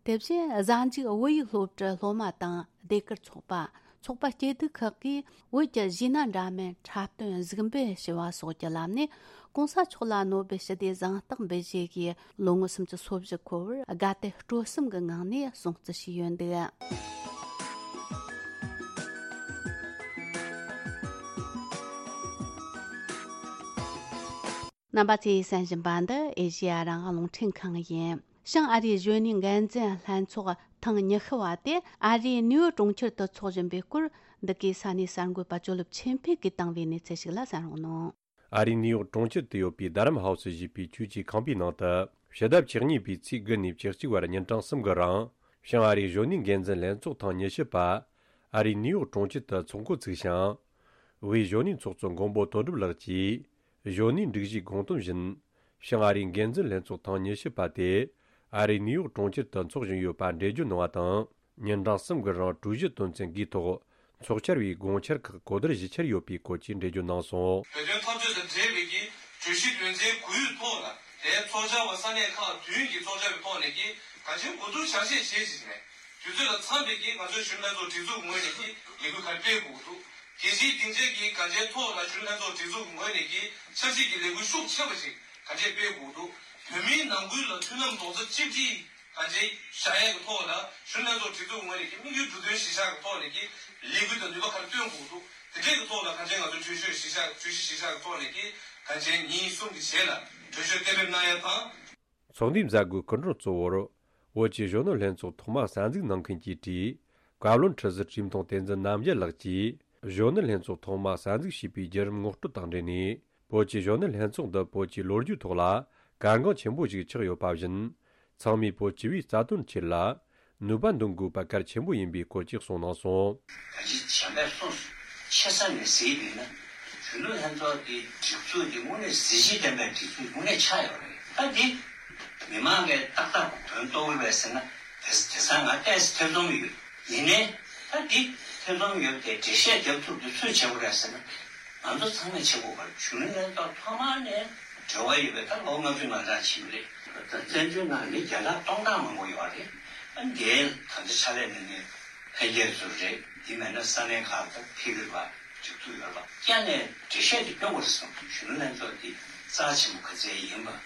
དེ་བཞིན་གཟའ་མཇུག་བོད་ཡིག་སློབ་གྲྭའི་སློབ་མ་དང་ཟློས་གར་ཚོགས་པ། ཚོགས་པ་སྐྱིད་སྡུག་ཁག་གིས་བོད་ཀྱི་གཞས་སྣ་འདྲ་མིན་འཁྲབ་སྟོན་གཟིགས་འབུལ་ཞུ་བ་སོགས་ཀྱི་ལམ་ནས་གོང་ས་མཆོག་ལ་ནོ་བེལ་ཞི་བདེའི་གཟེངས་རྟགས་འབུལ་བཞེས་ཀྱི་ལོ་ངོ་སུམ་ཅུ་སོ་བཞི་འཁོར་བར་དགའ་དད་སྤྲོ་གསུམ་གྱི་ངང་ནས་སྲུང་བརྩི་ཞུས་ཡོད་འདུག་རྣམ་པ་ཚོས་གསན་བཞིན་པ་འདི་ཨེ་ཤེ་ཡ་རང་དབང་རླུང་འཕྲིན་ཁང་ཡིན། བྱང་ཨ་རིའི་གཞོན་ནུའི་འགན་འཛིན་ལྷན་ཚོགས་ཐེངས་ཉི་ཤུ་བ་དེ་ཨ་རིའི་ནིའུ་ཡོག་གྲོང་ཁྱེར་དུ་འཚོགས་བཞིན་པའི་སྐོར། འདི་གའི་ས་གནས་གསར་འགོད་པ་ཇོ་ལེབ་ཆོས་འཕེལ་གྱིས་བཏང་བའི་གནས་ཚུལ་ཞིག་ལ་གསན་རོགས་གནང་། ཨ་རིའི་ནིའུ་ཡོག་གྲོང་ཁྱེར་དུ་ཡོད་པའི་རྡ་རམ་ཧའུ་སི་ཞེས་པའི་ཆོས་ཀྱི་ཁང་པའི་ནང་དུ། ཕྱི་ཟླ་བཅུ་གཉིས་པའི་ཚེས་དགུ་ནས་བཅུ་གཅིག་བར་ཉིན་གྲངས་གསུམ་གྱི་རིང་། བྱང་ཨ་རིའི་གཞོན་ནུའི་འགན་འཛིན་ལྷན་ཚོགས་ཐེངས་ཉི་ཤུ་པ། ཨ་རིའི་ནིའུ་ཡོག་གྲོང་ཁྱེར་དུ་འཚོགས་འགོ་ཚུགས་ཤིང་། དབུས་གཞོན་ནུའི་ཚོགས་གཙོ་མགོན་པོ་དོན་གྲུབ་ལགས་ཀྱིས། གཞོན་ནུའི་སྒྲིག་གཞིའི་དགོངས་དོན་བཞིན། བྱང་ཨ་རིའི་འགན་འཛིན་ལྷན་ཚོགས་ཐེངས་ཉི་ཤུ་པ་དེ། ཨ་རིའི་ནིའུ་ཡོག་གྲོང་ཁྱེར་དུ་འཚོགས་བཞིན་ཡོད་པ་འགྲེལ་བརྗོད་གནང་བ་དང་། ཉིན་གྲངས་གསུམ་གྱི་རིང་གྲོས་གཞི་དོན་ཚན་དགུའི་ཐོག་ཚོགས་བཅར་བའི་དགོངས་འཆར་ཁག་གོ་བསྡུར་ཞིབ་བཤེར་ཡོད་པའི་སྐོར་གྱི་འགྲེལ་བརྗོད་གནང་སོང་། བོད་དོན་འཐབ་རྩོད་དང་འབྲེལ་བའི་གི་གྲོས་གཞི་དོན་ཚན་དགུའི་ཐོག་ལ་དེའི་ཚོགས་བཅར་བ་ས་གནས་ཁག་བདུན་གྱི་ཚོགས་བཅར་བའི་ཐོག་ནས་ཀྱི་གང་ཅིའི་གོ་བསྡུར་བྱ་ཆེད་བྱེད་ཅིག་ནས་དུས་ཚོད་ལ་འཚམས་པའི་གི་ང་ཚོའི་གཞོན་ནུ་ལྷན་ཚོགས་སྒྲིག་འཛུགས་ངོས་ནས་ཀྱི་ལས་འགུལ་ག་རེ་སྤེལ་དགོས་འདུག་དེ་བཞིན་སྡིངས་ཆའི་གི་གང་ཅིའི་ཐོག་ལ་གཞོན་ནུ་ལྷན་ཚོགས་སྒྲིག་འཛུགས་ངོས་ནས་ཀྱི་ཆབ་སྲིད་ཀྱི་ལས་འགུལ་ཤུགས་ཆེ་བ་ཞིག་ག་འདྲས་སྤེལ་དགོས་འདུག་བོད་མིའི་ནང་ཁུལ་ལ་མཐུན་ལམ་རྡོག་རྩ་གཅིག་སྒྲིལ་གང་ཅིའི་བྱ་ཡས་ཀྱི་ཐོག་ལ་གཞོན་ནུ་ལྷན་ཚོགས་སྒྲིག་འཛུགས་ངོས་ནས་ཀྱི་དམིགས་ཡུལ་མདོ་དོན་གཞིར་བཞག་གི་ཐོག་ནས་ཀྱི་ལས་འགུལ་དང་ནུས་པ་ག་རེ་བཏོན་དགོས་འདུག་དེ་འདྲས་ཀྱི་ཐོག་ལ་གང་ཅིའི་ང་ཚོ་གྲོས་ཆོད་གཞིར་བཞག་གྲོས་གཞི་གཞིར་བཞག་གི་ཐོག་ནས་ཀྱི་གང་ཅིའི་ཉིན་གསུམ་གྱི་རྗེས་ལ་གྲོས་ཆོད་གཏན་འབེབས་གནང་ཡས་དང་། ཚོགས་འདུའི་མཛད་སྒོའི་སྐུ་མགྲོན་གཙོ་བོར། བོད་ཀྱི་གཞོན་ནུ་ལྷན་ཚོགས་ཐོག་མ་གསར་འཛུགས་གནང་མཁན་གྱི་གྲས། བཀའ་བློན་ཁྲི་ཟུར་ཁྲིམས་མཐོང་བསྟན་འཛིན་རྣམ་རྒྱལ་ལགས་ཀྱིས། གཞོན་ནུ་ལྷན་ཚོགས་ཐོག་མ་གསར་འཛུགས་བྱས་པའི་བརྒྱུད་རིམ་ངོ་སྤྲོད་དང་འབྲེལ་ནས། བོད་ཀྱི་གཞོན་ནུ་ལྷན་ཚོགས་འདི་བོད་ཀྱི་ལོ་རྒྱུས་ཐོག་ལ་གལ་འགངས་ཆེན་པོ་ཞིག་ཆགས་ཡོད་པ་བཞིན། ཚང་མས་བོད་སྤྱི་པའི་རྩ་དོན་ཆེད་ལ། ནུས་པ་འདོན་དགོས་པ་གལ་ཆེན་པོ་ཡིན་པའི་སྐོར་གྱི་གསུངས་གནང་སོང་། ད་ཅི་བྱས་པས་སོང་། ཆེ་ས་ནས་གཟིགས་པས་ན། གཞོན་ནུ་ལྷན་ཚོགས་ཀྱི་སྒྲིག་འཛུགས་ཀྱི་དངོས་གནས་གཟི་བརྗིད་ལྡན་པའི་སྒྲིག་འཛུགས་དངོས་གནས་ཆགས་ཡོད་རེད། ད་འདི་མི་མང་གིས་ཏག་ཏག་དོན་རྟོགས་ཀྱི་རེད་ཟེར་ན། དེ་དེང་སང་ང་ཏོག་ཙམ་ཐེ་ཚོམ་ཡོད། ཡིན་ནའི་ད་འདི་ཐེ་ཚོམ་ཡོད་དེ་འགྲེལ་བཤད་རྒྱབ་ཐུབ་རྒྱུ་སུས་བྱེད་དགོས་རེད་ཟེར་ན། ང་ཚོ་ཚང་མས་བྱེད་དགོས་པ་རེད། གཞོན་ནུ་ལྷན་ཚོགས་ཐོག་མ་ནས་འབྲེལ་བ་ཡོད་པའི་ད་ལོ་ལྔ་བཅུ་ང་གྲངས་ཕྱིན་པ་རེད། ད་བཙན་བྱོལ་ནང་མི་བརྒྱ་ཕྲག་སྟོང་ཕྲག་མང་པོ་ཡོད་རེད། ཨ་འདིའི་ད་ལྟ་ཕྱག་ལས་གནང་མཁན་འཕེལ་རྒྱས་ཚོ་རེད། འདི་མེད་ན་ས་གནས་ཁག་ཏུ་ཕེབས་ཡོད་པ་སྒྲིག་འཛུགས་ཡོད་པ་བསྐྱར་ནས་འགྲེལ་བཤད་དེ་སྐྱོན་དགོས་རེད་བསམ། གཞོན་ནུ་ལྷན་ཚོགས་འདི་རྩ་ཆེན་པོ་ག་ཚད་ཡིན་པ།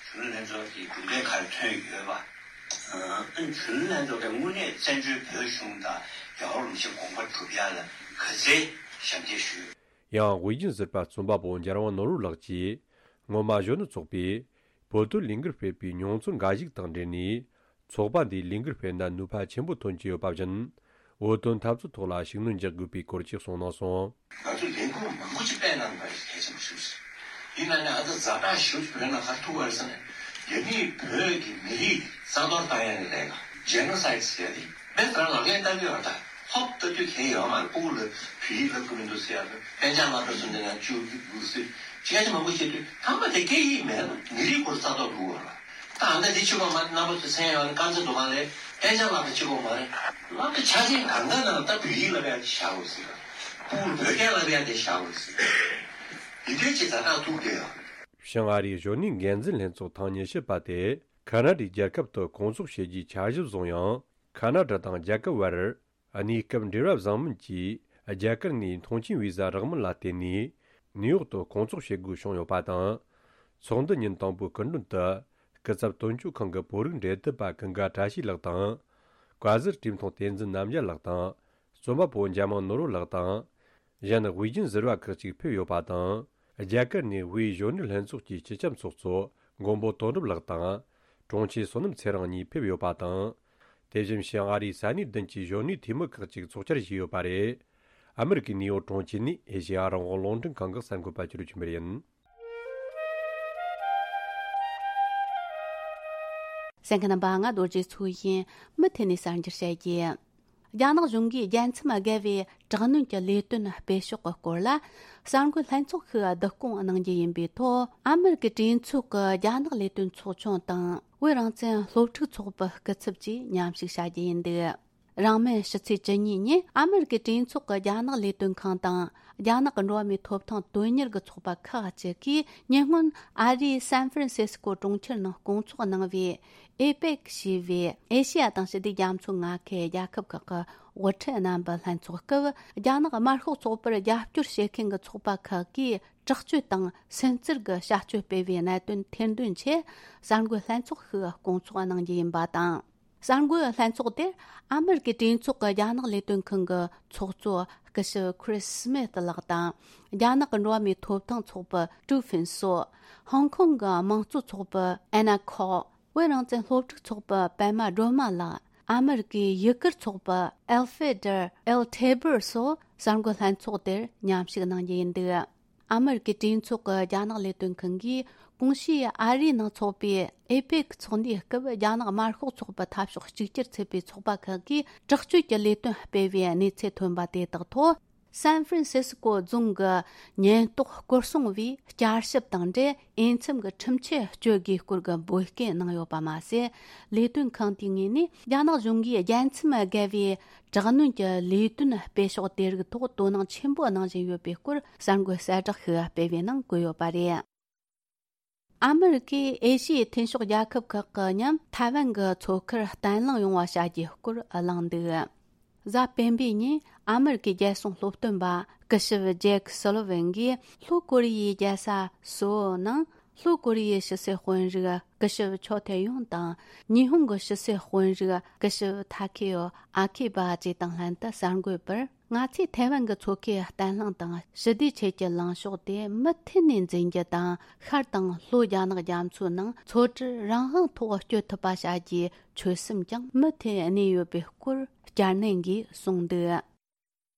གཞོན་ནུ་ལྷན་ཚོགས་འདི་གྲུབ་འབྲས་ག་རེ་ཐོན་ཡོད་པ། ཨ་གཞོན་ནུ་ལྷན་ཚོགས་ཀྱིས་དངོས་གནས་བཙན་བྱོལ་བོད་གཞུང་དང་རྒྱལ་བ་རིན་པོ་ཆེའི་དགོངས་པ་སྒྲུབ་ཡ་ལ་ག་ཚད་ཞབས་འདེགས་ཞུས། ཡང་དབུས་རྒྱུན་ཟུར་པ་རྩོམ་པ་པོ་འཇམ་དབྱངས་ནོར་བུ་ལགས་ཀྱིས། སྔོན་མ་གཞོན་ནུ་ཚོགས་པས་བོད་དོན་ལས་འགུལ་སྤེལ་བའི་མྱོང་ཚོར་འགའ་ཞིག་དང་འབྲེལ་ནས། ཚོགས་པ་འདིས་ལས་འགུལ་སྤེལ་ན་ནུས་པ་ཆེན་པོ་ཐོན་གྱི་ཡོད་པ་བཞིན། བོད་དོན་འཐབ་རྩོད་ཐོག་ལ་ཤུགས་སྣོན་རྒྱག་དགོས་པའི་སྐོར་གྱི་གསུངས་གནང་སོང་། ང་ཚོས་ལས་འགུལ་མང་པོ་ཅིག་སྤེལ་གནང་དགོས་པ་གལ་ཆེན་པོ་ཞིག་རེད། ཡིན་ན་ནི་ཨ་ད་ཛ་དྲག་ཞེ་པོ་ཅིག་བོད་ནང་ག་རེ་ཐུག་པ་རེད་ཟེར་ན། རྒྱ་མིས་བོད་ཀྱི་མི་རིགས་རྩ་གཏོར་བཏང་ཡ་གི་ལས་ཀ་ཇེ་ནོ་སའིད་ཟེར་ཡ་དེ། དཔེ་ལྟར་ལག་ལེན་བསྟར་གྱི་ཡོད་ད། ཧོབ་ལྟ་དུས་གལ་ཡོད་མ་རེད། སྤུ་གུ་ལ་བོད་ཡིག་བསླབ་ཀྱི་མི་འདུག་ཟེར་ཡ་དང་། གཏན་འཇགས་སློབ་གྲྭ་ཚོ་འདི་ན་བཅུག་གི་འདུག་ཟེར་སྐད་ཆ་མང་པོ་བཤད་དུས། ཐ་མ་དེ་སྐད་ཡིག་མེད་ན་མི་རིགས་སྐོར་རྩ་གཏོར་འགྲོ་གི་ཡོད་རེད། ད་ཨ་ད་དེ་གཅིག་པོ་མ་རེད། རྣམ་པ་ཚོ་མཚན་ཡོད་རེད། དཀར་མཛེས་དོ་དགོང་ལས་གཏན་འཇགས་སློབ་གྲྭ་གཅིག་པོ་མ་རེད། སློབ་གྲྭ་ཆ་ཆེན་གང་ག་ནང་ད་བོད་ཡིག་བསླབ་ཡ་དེ་བཞག་དགོས་ཟེར། སྤུ་གུར་བོད་སྐད་བསླབ་ཡ་དེ་བཞག་དགོས་ཟེར། འདི་འདྲའི་ཅིག་ཛ་དྲག་ཐུག་བསྡད་ཡོད་རེད། བྱང་ཨ་རིའི་གཞོན་ནུའི་འགན་འཛིན་ལྷན་ཚོགས་ཐེངས་ཉི་ཤུ་པ་དེ་ཁ་ན་ཌའི་རྒྱལ་ཁབ་ཏུ་སྐོང་ཚོགས་བྱེད་རྒྱུའི་འཆར་གཞི་བཟུང་ཡང་། ཁ་ན་ཌ་དང་རྒྱ་གར་བར་གནས་སྐབས་འབྲེལ་བ་བཟང་མིན་གྱིས་རྒྱ་གར་ནས་མཐོང་མཆན་བི་ཟ་རག་མིན་ལ་བརྟེན་ནས་ནིའུ་ཡོག་ཏུ་སྐོང་ཚོགས་བྱེད་དགོས་བྱུང་ཡོད་པ་དང་། ཚོགས་འདུ་ཉིན་དང་པོའི་སྐུ་མགྲོན་དུ་སྐུ་ཚབ་དོན་གཅོད་ཁང་གི་བོད་རིགས་འབྲེལ་མཐུད་པ་ཀུན་དགའ་བཀྲ་ཤིས་ལགས་དང་། བཀའ་ཟུར་ཁྲིམས་མཐོང་བསྟན་འཛིན་རྣམ་རྒྱལ་ལགས་དང་། རྩོམ་པ་པོ་འཇམ་དབྱངས་ནོར་བུ་ལགས་དང་། གཞན་དབུས་རྒྱུན་ཟུར་པ་ཁག་ཅིག་ཕེབས་ཡོད་པ་དང་། རྒྱ་གར་ནས་དབུས་གཞོན་ནུ་ལྷན་ཚོགས་ཀྱི་སྤྱི་ཁྱབ་ཚོགས་གཙོ་མགོན་པོ་དོན་གྲུབ་ལགས་དང་། དྲུང་ཆེ་བསོད་ནམས་ཚེ་རིང་གཉིས་ཕེབས་ཡོད་པ་དང་། དེ་བཞིན་བྱང་ཨ་རིའི་ས་གནས་བདུན་གྱི་གཞོན་ནུའི་འཐུས་མི་ཁག་ཅིག་ཚོགས་བཅར་བྱས་ཡོད་པ་རེད། ཨ་མི་རི་ཀའི་ནིའུ་ཡོག་གྲོང་ཁྱེར་ནས་ཨེ་ཤེ་ཡ་རང་དབང་རླུང་འཕྲིན་ཁང་གི་གསར་འགོད་པ་ཆོས་སྒྲོན་ཆོས་འཕེལ་ཡིན། གསན་མཁན་རྣམ་པ། ང་རྡོ་རྗེ་མཚོ་ཡིན། མུ་མཐུད་ནས་གསར་འགྱུར་བཤད་རྒྱུ། རྒྱ་ནག་གཞུང་གིས་རྒྱལ་མཚམས་བརྒལ་བའི་དྲག་གནོན་གྱི་ལས་དོན་སྤེལ་ཕྱོགས་ཀྱི་སྐོར་ལ་གསར་འགོད་ལྷན་ཚོགས་ཤིག་བསྡུ་སྐོང་གནང་རྒྱུ་ཡིན་པའི་ཐོག་ཨ་མི་རི་ཀའི་གྲོས་ཚོགས་ཀྱི་རྒྱ་ནག་ལས་དོན་ཚོགས་ཆུང་དང་བོད་རང་བཙན་སློབ་ཕྲུག་ཚོགས་པའི་སྐུ་ཚབ་བཅས་མཉམ་ཞུགས་བྱ་རྒྱུ་ཡིན་འདུག་རིང་མིན་ཕྱི་ཚེས་བཅུ་གཉིས་ཉིན་ཨ་མེ་རི་ཀའི་གྲོས་ཚོགས་ཀྱི་རྒྱ་ནག་ལས་དོན་ཁང་དང་རྒྱ་ནག་གི་འགྲོ་བ་མིའི་ཐོབ་ཐང་དོན་གཉེར་གྱི་ཚོགས་པ་ཁག་ཅིག་གིས་ཉེ་སྔོན་ཨ་རིའི་སན་ཧྥ་རན་སི་སི་ཀོ་གྲོང་ཁྱེར་ནང་སྐོང་ཚོགས་གནང་བའི་ཨེ་པེག་ཞེས་པའི་ཨེ་ཤེ་ཡ་དང་ཞི་བདེ་རྒྱ་མཚོའི་མངའ་ཁུལ་རྒྱལ་ཁབ་ཁག་གི་དབུ་ཁྲིད་རྣམ་པའི་ལྷན་ཚོགས་སྐབས། རྒྱ་ནག་དམར་ཤོག་ཚོགས་པར་རྒྱབ་སྐྱོར་བྱེད་མཁན་གྱི་ཚོགས་པ་ཁག་གིས་དྲག་སྤྱོད་དང་སུན་གཙེར་གྱི་བྱ་སྤྱོད་སྤེལ་བའི་གནད་དོན་ཐེར་འདོན་ཆེད་གསར་འགོད་ལྷན་ཚོགས་ཤིག་སྐོང་ཚོགས་གནང་རྒྱུ་ཡིན་པ་དང་། གསར་འགོད་ལྷན་ཚོགས་དེར་ཨ་མེ་རི་ཀའི་གྲོས་ཚོགས་ཀྱི་རྒྱ་ནག་ལས་དོན་ཁང་གི་ཚོགས་གཙོ་སྐུ་ཞབས་ཁི་རིས་སྨིད་ལགས་དང་། རྒྱ་ནག་གི་འགྲོ་བ་མིའི་ཐོབ་ཐང་ཚོགས་པ་ཀྲུའུ་ཧྥིན་སོ། ཧོང་ཀོང་གི་དམངས་གཙོ་ཚོགས་པ་ཨེ་ན་ཁོ། བོད་རང་བཙན་སློབ་ཕྲུག་ཚོགས་པ་པད་མ་སྒྲོལ་མ་ལགས། ཨ་མེ་རི་ཀའི་ཡུ་གུར་ཚོགས་པ་ཨེལ་ཧྥེ་ཌར་ཨེལ་ཐེ་བུར་སོགས་གསར་འགོད་ལྷན་ཚོགས་དེར་མཉམ་ཞུགས་གནང་རྒྱུ་ཡིན་འདུག་ཨ་མེ་རི་ཀའི་གྲོས་ཚོགས་ཀྱི་རྒྱ་ནག་ལས་དོན་ཁང་གིས་གོང་ཞུས་ཨ་རིའི་ནང་འཚོགས་པའི་ཨེ་པེག་ཚོགས་འདུའི་སྐབས། རྒྱ་ནག་དམར་ཤོག་ཚོགས་པ་འཐབ་ཕྱོགས་གཅིག་གྱུར་ཚུད་པའི་ཚོགས་པ་ཁག་གིས་དྲག་སྤྱོད་ཀྱི་ལས་དོན་སྤེལ་བའི་གནས་ཚུལ་ཐོན་པ་དེ་དག་ཐོག་སན་ཧྥ་རན་སི་སི་ཀོ་རྫོང་གི་ཉེན་རྟོག་སྐོར་སྲུང་བས་བསྐྱར་ཞིབ་དང་འབྲེལ། འོས་འཚམ་གྱི་ཁྲིམས་ཆད་གཅོད་དགོས་སྐོར་གྱི་འབོད་སྐུལ་གནང་ཡོད་པ་མ་ཟད། ལས་དོན་ཁང་དེའི་ངོས་ནས་རྒྱ་ནག་གཞུང་གིས་རྒྱལ་མཚམས་བརྒལ་བའི་དྲག་གནོན་གྱི་ལས་དོན་སྤེལ་ཕྱོགས་དེ་རིགས་ཐོག་དོ་སྣང་ཆེན་པོ་གནང་བཞིན་ཡོད་པའི་སྐོར་གསར་འགོད་གསལ་བསྒྲགས་ཤིག་སྤེལ་བའི་ནང་བཀོད་ཡོད་པ་རེད། ཨ་མེ་རི་ཀས་ཨེ་ཤི་ཡའི་མཐུན་ཕྱོགས་རྒྱལ་ཁབ་ཁག་གི་མཉམ་ཐའེ་ཝན་གྱི་མཚོ་ཁར་བརྟན་ལྷིང་ཡོང་བ་བྱ་རྒྱུའི་སྐོར་གླེང་འདུག་གཟའ་སྤེན་པའི་ཉིན་ཨ་མེ་རི་ཀའི་རྒྱལ་སྲུང་སློབ་སྟོན་པ་སྐུ་ཞབས་ཇེག་སོ་ལི་ཝན་གྱིས་ལྷོ་ཀོ་རི་ཡའི་རྒྱལ་ས་སོའོ་ནང་ལྷོ་ཀོ་རི་ཡའི་ཕྱི་སྲིད་དཔོན་རིགས་སྐུ་ཞབས་ཆོ་ཐེ་ཡོང་དང་། ཉི་ཧོང་གི་ཕྱི་སྲིད་དཔོན་རིགས་སྐུ་ཞབས་ཐ་ཁེ་ཡོ་ཨ་ཁི་བ་བཅས་དང་ལྷན་དུ་གསར་འགོད་པར། ང་ཚོས་ཐའེ་ཝན་གྱི་མཚོ་ཁའི་བརྟན་ལྷིང་དང་ཞི་བདེའི་ཆེད་ཀྱི་ལངས་ཕྱོགས་དེ་མུ་མཐུད་ནས་འཛིན་རྒྱུ་དང་། ཤར་དང་ལྷོ་རྒྱ་ནག་རྒྱ་མཚོའི་ནང་མཚོ་གྲུར་རང་དབང་ཐོག་སྐྱོད་ཐུབ་པ་བྱ་རྒྱུའི་ཆོད་སེམས་ཀྱང་མུ་མཐུད་གནས་ཡོད་པའི་སྐོར་བསྐྱར་ནན་གྱིས་གསུངས་འདུག་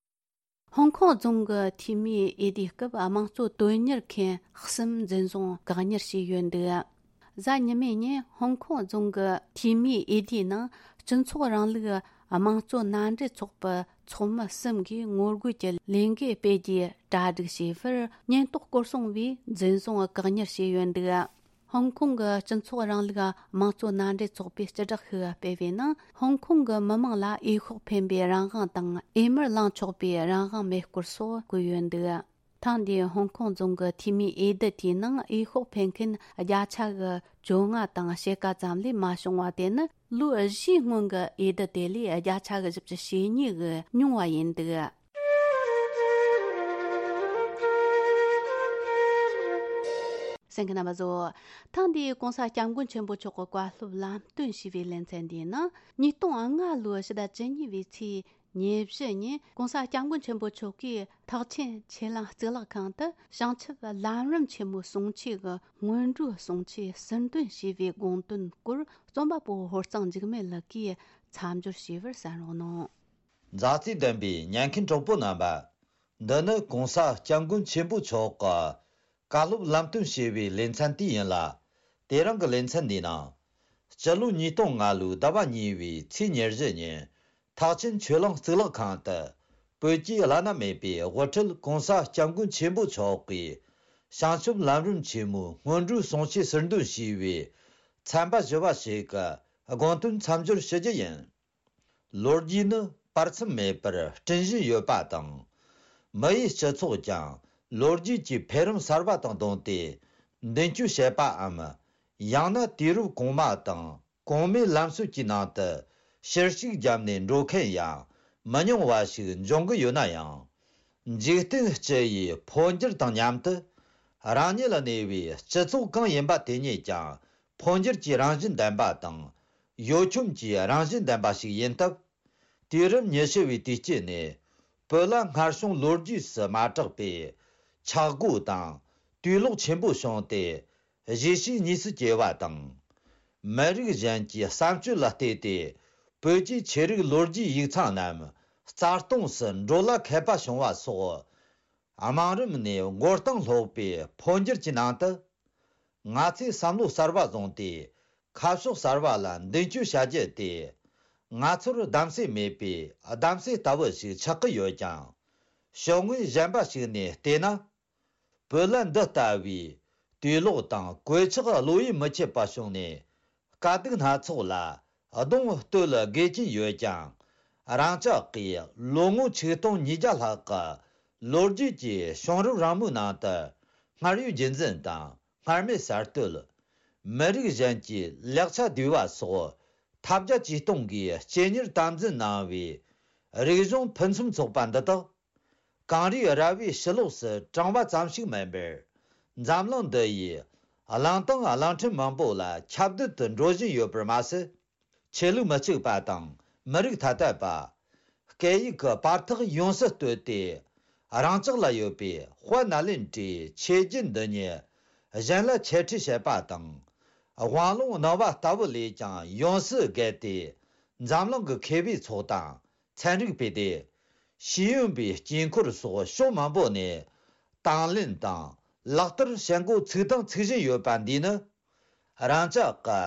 ཧོང་ཀོང་རྫོང་གི་འཐུས་མིའི་འོས་བསྡུའི་སྐབས། དམངས་གཙོ་དོན་གཉེར་མཁན་གསུམ་འཛིན་བཟུང་བཀག་ཉར་བྱས་ཡོད་འདུག་གཟའ་ཉི་མའི་ཉིན་ཧོང་ཀོང་རྫོང་གི་འཐུས་མིའི་འོས་བསྡུའི་ནང་། སྤྱི་ཚོགས་རིང་ལུགས་དམངས་གཙོ་མནའ་འབྲེལ་ཚོགས་པའི་ཚོགས་མི་གསུམ་གྱིས་ངོ་རྒོལ་གྱི་ལས་འགུལ་སྤེལ་རྒྱུའི་གྲ་སྒྲིག་བྱས་པར། ཉེན་རྟོག་སྐོར་སྲུང་བས་འཛིན་བཟུང་བཀག་ཉར་བྱས་ཡོད་འདུག་ཧོང་ཀོང་གི་སྤྱི་ཚོགས་རིང་ལུགས་དམངས་གཙོ་མནའ་འབྲེལ་ཚོགས་པས་སྤྱི་བསྒྲགས་ཤིག་སྤེལ་བའི་ནང་། ཧོང་ཀོང་གི་མི་མང་ལ་འོས་ཤོག་འཕེན་པའི་རང་དབང་དང་། འོས་མིར་ལངས་ཆོག་པའི་རང་དབང་མེད་སྐོར་སོགས་བཀོད་ཡོད་འདུག་ཐེངས་འདིའི་ཧོང་ཀོང་རྫོང་གི་འཐུས་མིའི་འོས་བསྡུ་དེའི་ནང་འོས་ཤོག་འཕེན་མཁན་བརྒྱ་ཆ་གི་བཅོ་ལྔ་དང་ཕྱེད་ཀ་ཙམ་ལས་མ་བྱུང་བ། དེ་ནི་ལོ་བཞིའི་སྔོན་གྱི་འོས་བསྡུ་དེ་ལས་བརྒྱ་ཆ་གི་བཞི་བཅུ་ཞེ་གཉིས་ཀྱིས་ཉུང་བ་ཡིན་འདུག་གསན་མཁན་རྣམ་པ་ཚོ། ཐེངས་འདིའི་༸གོང་ས་༸སྐྱབས་མགོན་ཆེན་པོ་མཆོག་གི་བཀའ་སློབ་ལམ་སྟོན་ཞུས་པའི་ལེ་ཚན་འདིའི་ནང་། ཉིས་སྟོང་ལྔ་ལོའི་ཕྱི་ཟླ་བཅུ་གཉིས་པའི་ཚེས་ཉེར་བཞི་ཉིན་༸གོང་ས་༸སྐྱབས་མགོན་ཆེན་པོ་མཆོག་གིས་ཐེག་ཆེན་ཆོས་གླིང་གཙུག་ལག་ཁང་དུ་བྱང་ཆུབ་ལམ་རིམ་ཆེན་མོའི་གསུང་ཆོས་ཀྱི་སྔོན་འགྲོའི་གསུང་ཆོས་ཟུར་འདོན་ཞུས་པའི་དགོངས་དོན་སྐོར། རྩོམ་པ་པོ་ཧོར་གཙང་འཇིགས་མེད་ལགས་ཀྱིས་མཚམས་སྦྱོར་ཞུས་པར་གསན་རོགས་གནང་། མཛའ་བརྩེ་ལྡན་པའི་ཉན་མཁན་གྲོགས་པོ་རྣམ་པ། འདི་ནི་༸གོང་ས་༸སྐྱབས་མགོན་ཆེན་པོ་མཆོག་གི་བཀའ་སློབ་ལམ་སྟོན་ཞུས་པའི་ལེ་ཚན་དེ་ཡིན་ལ། དེ་རིང་གི་ལེ་ཚན་འདིའི་ནང་། སྤྱི་ལོ་ཉིས་སྟོང་ལྔ་ལོའི་ཟླ་བ་གཉིས་པའི་ཚེས་ཉེར་བཞི་ཉིན། ཐེག་ཆེན་ཆོས་གླིང་གཙུག་ལག་ཁང་དུ། བོད་ཀྱི་བླ་ན་མེད་པའི་དབུ་ཁྲིད་༸གོང་ས་༸སྐྱབས་མགོན་ཆེན་པོ་མཆོག་གིས། བྱང་ཆུབ་ལམ་རིམ་ཆེན་མོའི་སྔོན་འགྲོའི་གསུང་ཆོས་ཟུར་འདོན་ཞུས་པའི་ཚན་པ་བཞི་བ་ཞིག་གི་དགོངས་དོན་མཚམས་སྦྱོར་ཞུ་རྒྱུ་ཡིན། ལོ་རྒྱུས་ནི་བར་མཚམས་མེད་པར་སྤྲིན་བཞིན་ཡོད་པ་དང་། མི་ཡི་སྤྱི་ཚོགས་ཀྱང་ལོ་རྒྱུས་ཀྱི་འཕེལ་རིམ་གསར་བ་དང་བསྡོངས་ཏེ་མདུན་སྐྱོད་བྱེད་པའམ། ཡང་ན་དུས་རབས་གོང་མ་དང་གོང་མའི་ལམ་སྲོལ་གྱི་ནང་དུ་ཕྱིར་ཞིག་བརྒྱབ་ནས་འགྲོ་མཁན་ཡང་མི་ཉུང་བ་ཞིག་འབྱུང་གི་ཡོད་ན་ཡང་། འཇིག་རྟེན་སྤྱི་ཡི་འཕོ་འགྱུར་དང་མཉམ་དུ། རང་ཉིད་ལ་གནས་པའི་སྤྱི་ཚོགས་གང་ཡིན་པ་དེ་ཉིད་ཀྱང་འཕོ་འགྱུར་གྱི་རང་བཞིན་ལྡན་པ་དང་། གཡོ་འཁྱོམ་གྱི་རང་བཞིན་ལྡན་པ་ཞིག་ཡིན་སྟབས། དུས་རབས་ཉི་ཤུ་བའི་དུས་དཀྱིལ་ནས་བོད་ལ་སྔར་བྱུང་ལོ་རྒྱུས་སུ་མ་གྲགས་པའི་ཆག་སྒོ་དང་དུག་ལོག་ཆེན་པོ་བྱུང་སྟེ། གཞིས་བྱེས་གཉིས་སུ་གྱེས་པ་དང་། མི་རིགས་གཞན་གྱི་བསམ་སྤྱོད་ལ་བལྟས་ཏེ། བོད་ཀྱི་ཆོས་རིག་ལོ་རྒྱུས་ཡིག་ཚང་རྣམས་རྩ་སྟོངས་སུ་འགྲོ་ལ་མཁས་པ་བྱུང་བ་སོགས། དམའ་རིམ་ནས་མགོ་རྟིང་སློག་པའི་འཕོ་འགྱུར་གྱི་ནང་དུ། ང་ཚོས་བསམ་བློ་གསར་བ་བཟུང་སྟེ། ཁ་ཕྱོགས་གསར་བ་ལ་མདུན་སྐྱོད་བྱ་རྒྱུ་དེ། ང་ཚོར་གདམ་གསེས་མེད་པའི་གདམ་གསེས་ལྟ་བུ་ཞིག་ཆགས་ཀྱི་ཡོད་ཀྱང་། ཕྱོགས་ངོས་གཞན་པ་ཞིག་ནས་བལྟས་ན། བོད་ལ་འདི་ལྟ་བུའི་དུག་ལོག་དང་གོད་ཆག་བློ་ཡིད་མི་ཆེས་པ་བྱུང་ནས། དཀའ་སྡུག་སྣ་ཚོགས་ལ་གདོང་གཏོད་དགོས་ཀྱིན་ཡོད་ཀྱང་ རང་ཅག་གིས་ལོ་ངོ་ཆིག་སྟོང་ཉིས་བརྒྱ་ལྷག་གི་ལོ་རྒྱུས་ཀྱི་བྱུང་རབས་རིང་མོའི་ནང་དུ་སྔར་ཡོད་རྒྱུན་འཛིན་དང་སྔར་མེད་གསར་གཏོད། མི་རིགས་གཞན་གྱི་ལེགས་ཆ་བསྡུས་པ་སོགས་ཐབས་བརྒྱ་ཇུས་སྟོང་གིས་སྤྱན་གཉེར་དམ་འཛིན་གནང་བའི་རིག་གཞུང་ཕུན་སུམ་ཚོགས་པ་འདི་དག་གངས་རིའི་ར་བའི་ཕྱི་ལོགས་སུ་གྲངས་པ་ཙམ་ཞིག་མིན་པར། འཛམ་གླིང་འདི་ཡི་གླིང་དང་གླིང་ཕྲན་མང་པོ་ལ་ཁྱབ་གདལ་དུ་འགྲོ་བཞིན་ཡོད་པར་མ་ཟད། ཆོས་ལུགས་མི་གཅིག་པ་དང་མི་རིགས་ཐ་དད་པ། སྐད་ཡིག་གི་བར་ཐག་ཡོངས་སུ་བཏོད་དེ། རང་ཅག་ལ་ཡོད་པའི་དཔལ་ནཱ་ལེནྡྲའི་ཆོས་བརྒྱུད་འདི་ཉིད་གཞན་ལ་འཆད་ཁྲིད་བྱེད་པ་དང་། དབང་ལུང་གནང་བ་ལྟ་བུ་ལས་ཀྱང་ཡོངས་སུ་བརྒལ་ཏེ། འཛམ་གླིང་གི་མཁས་པའི་ཚོགས་དང་ཚན་རིག་པའི་སྡེ། ཤེས་ཡོན་པའི་དཀྱིལ་འཁོར་སོགས་ཕྱོགས་མང་པོ་ནས་དང་ལེན་དང་ལག་བསྟར་བྱེད་འགོ་ཚུགས་དང་ཚུགས་བཞིན་ཡོད་པ་འདིས་ནི། རང་ཅག་གི་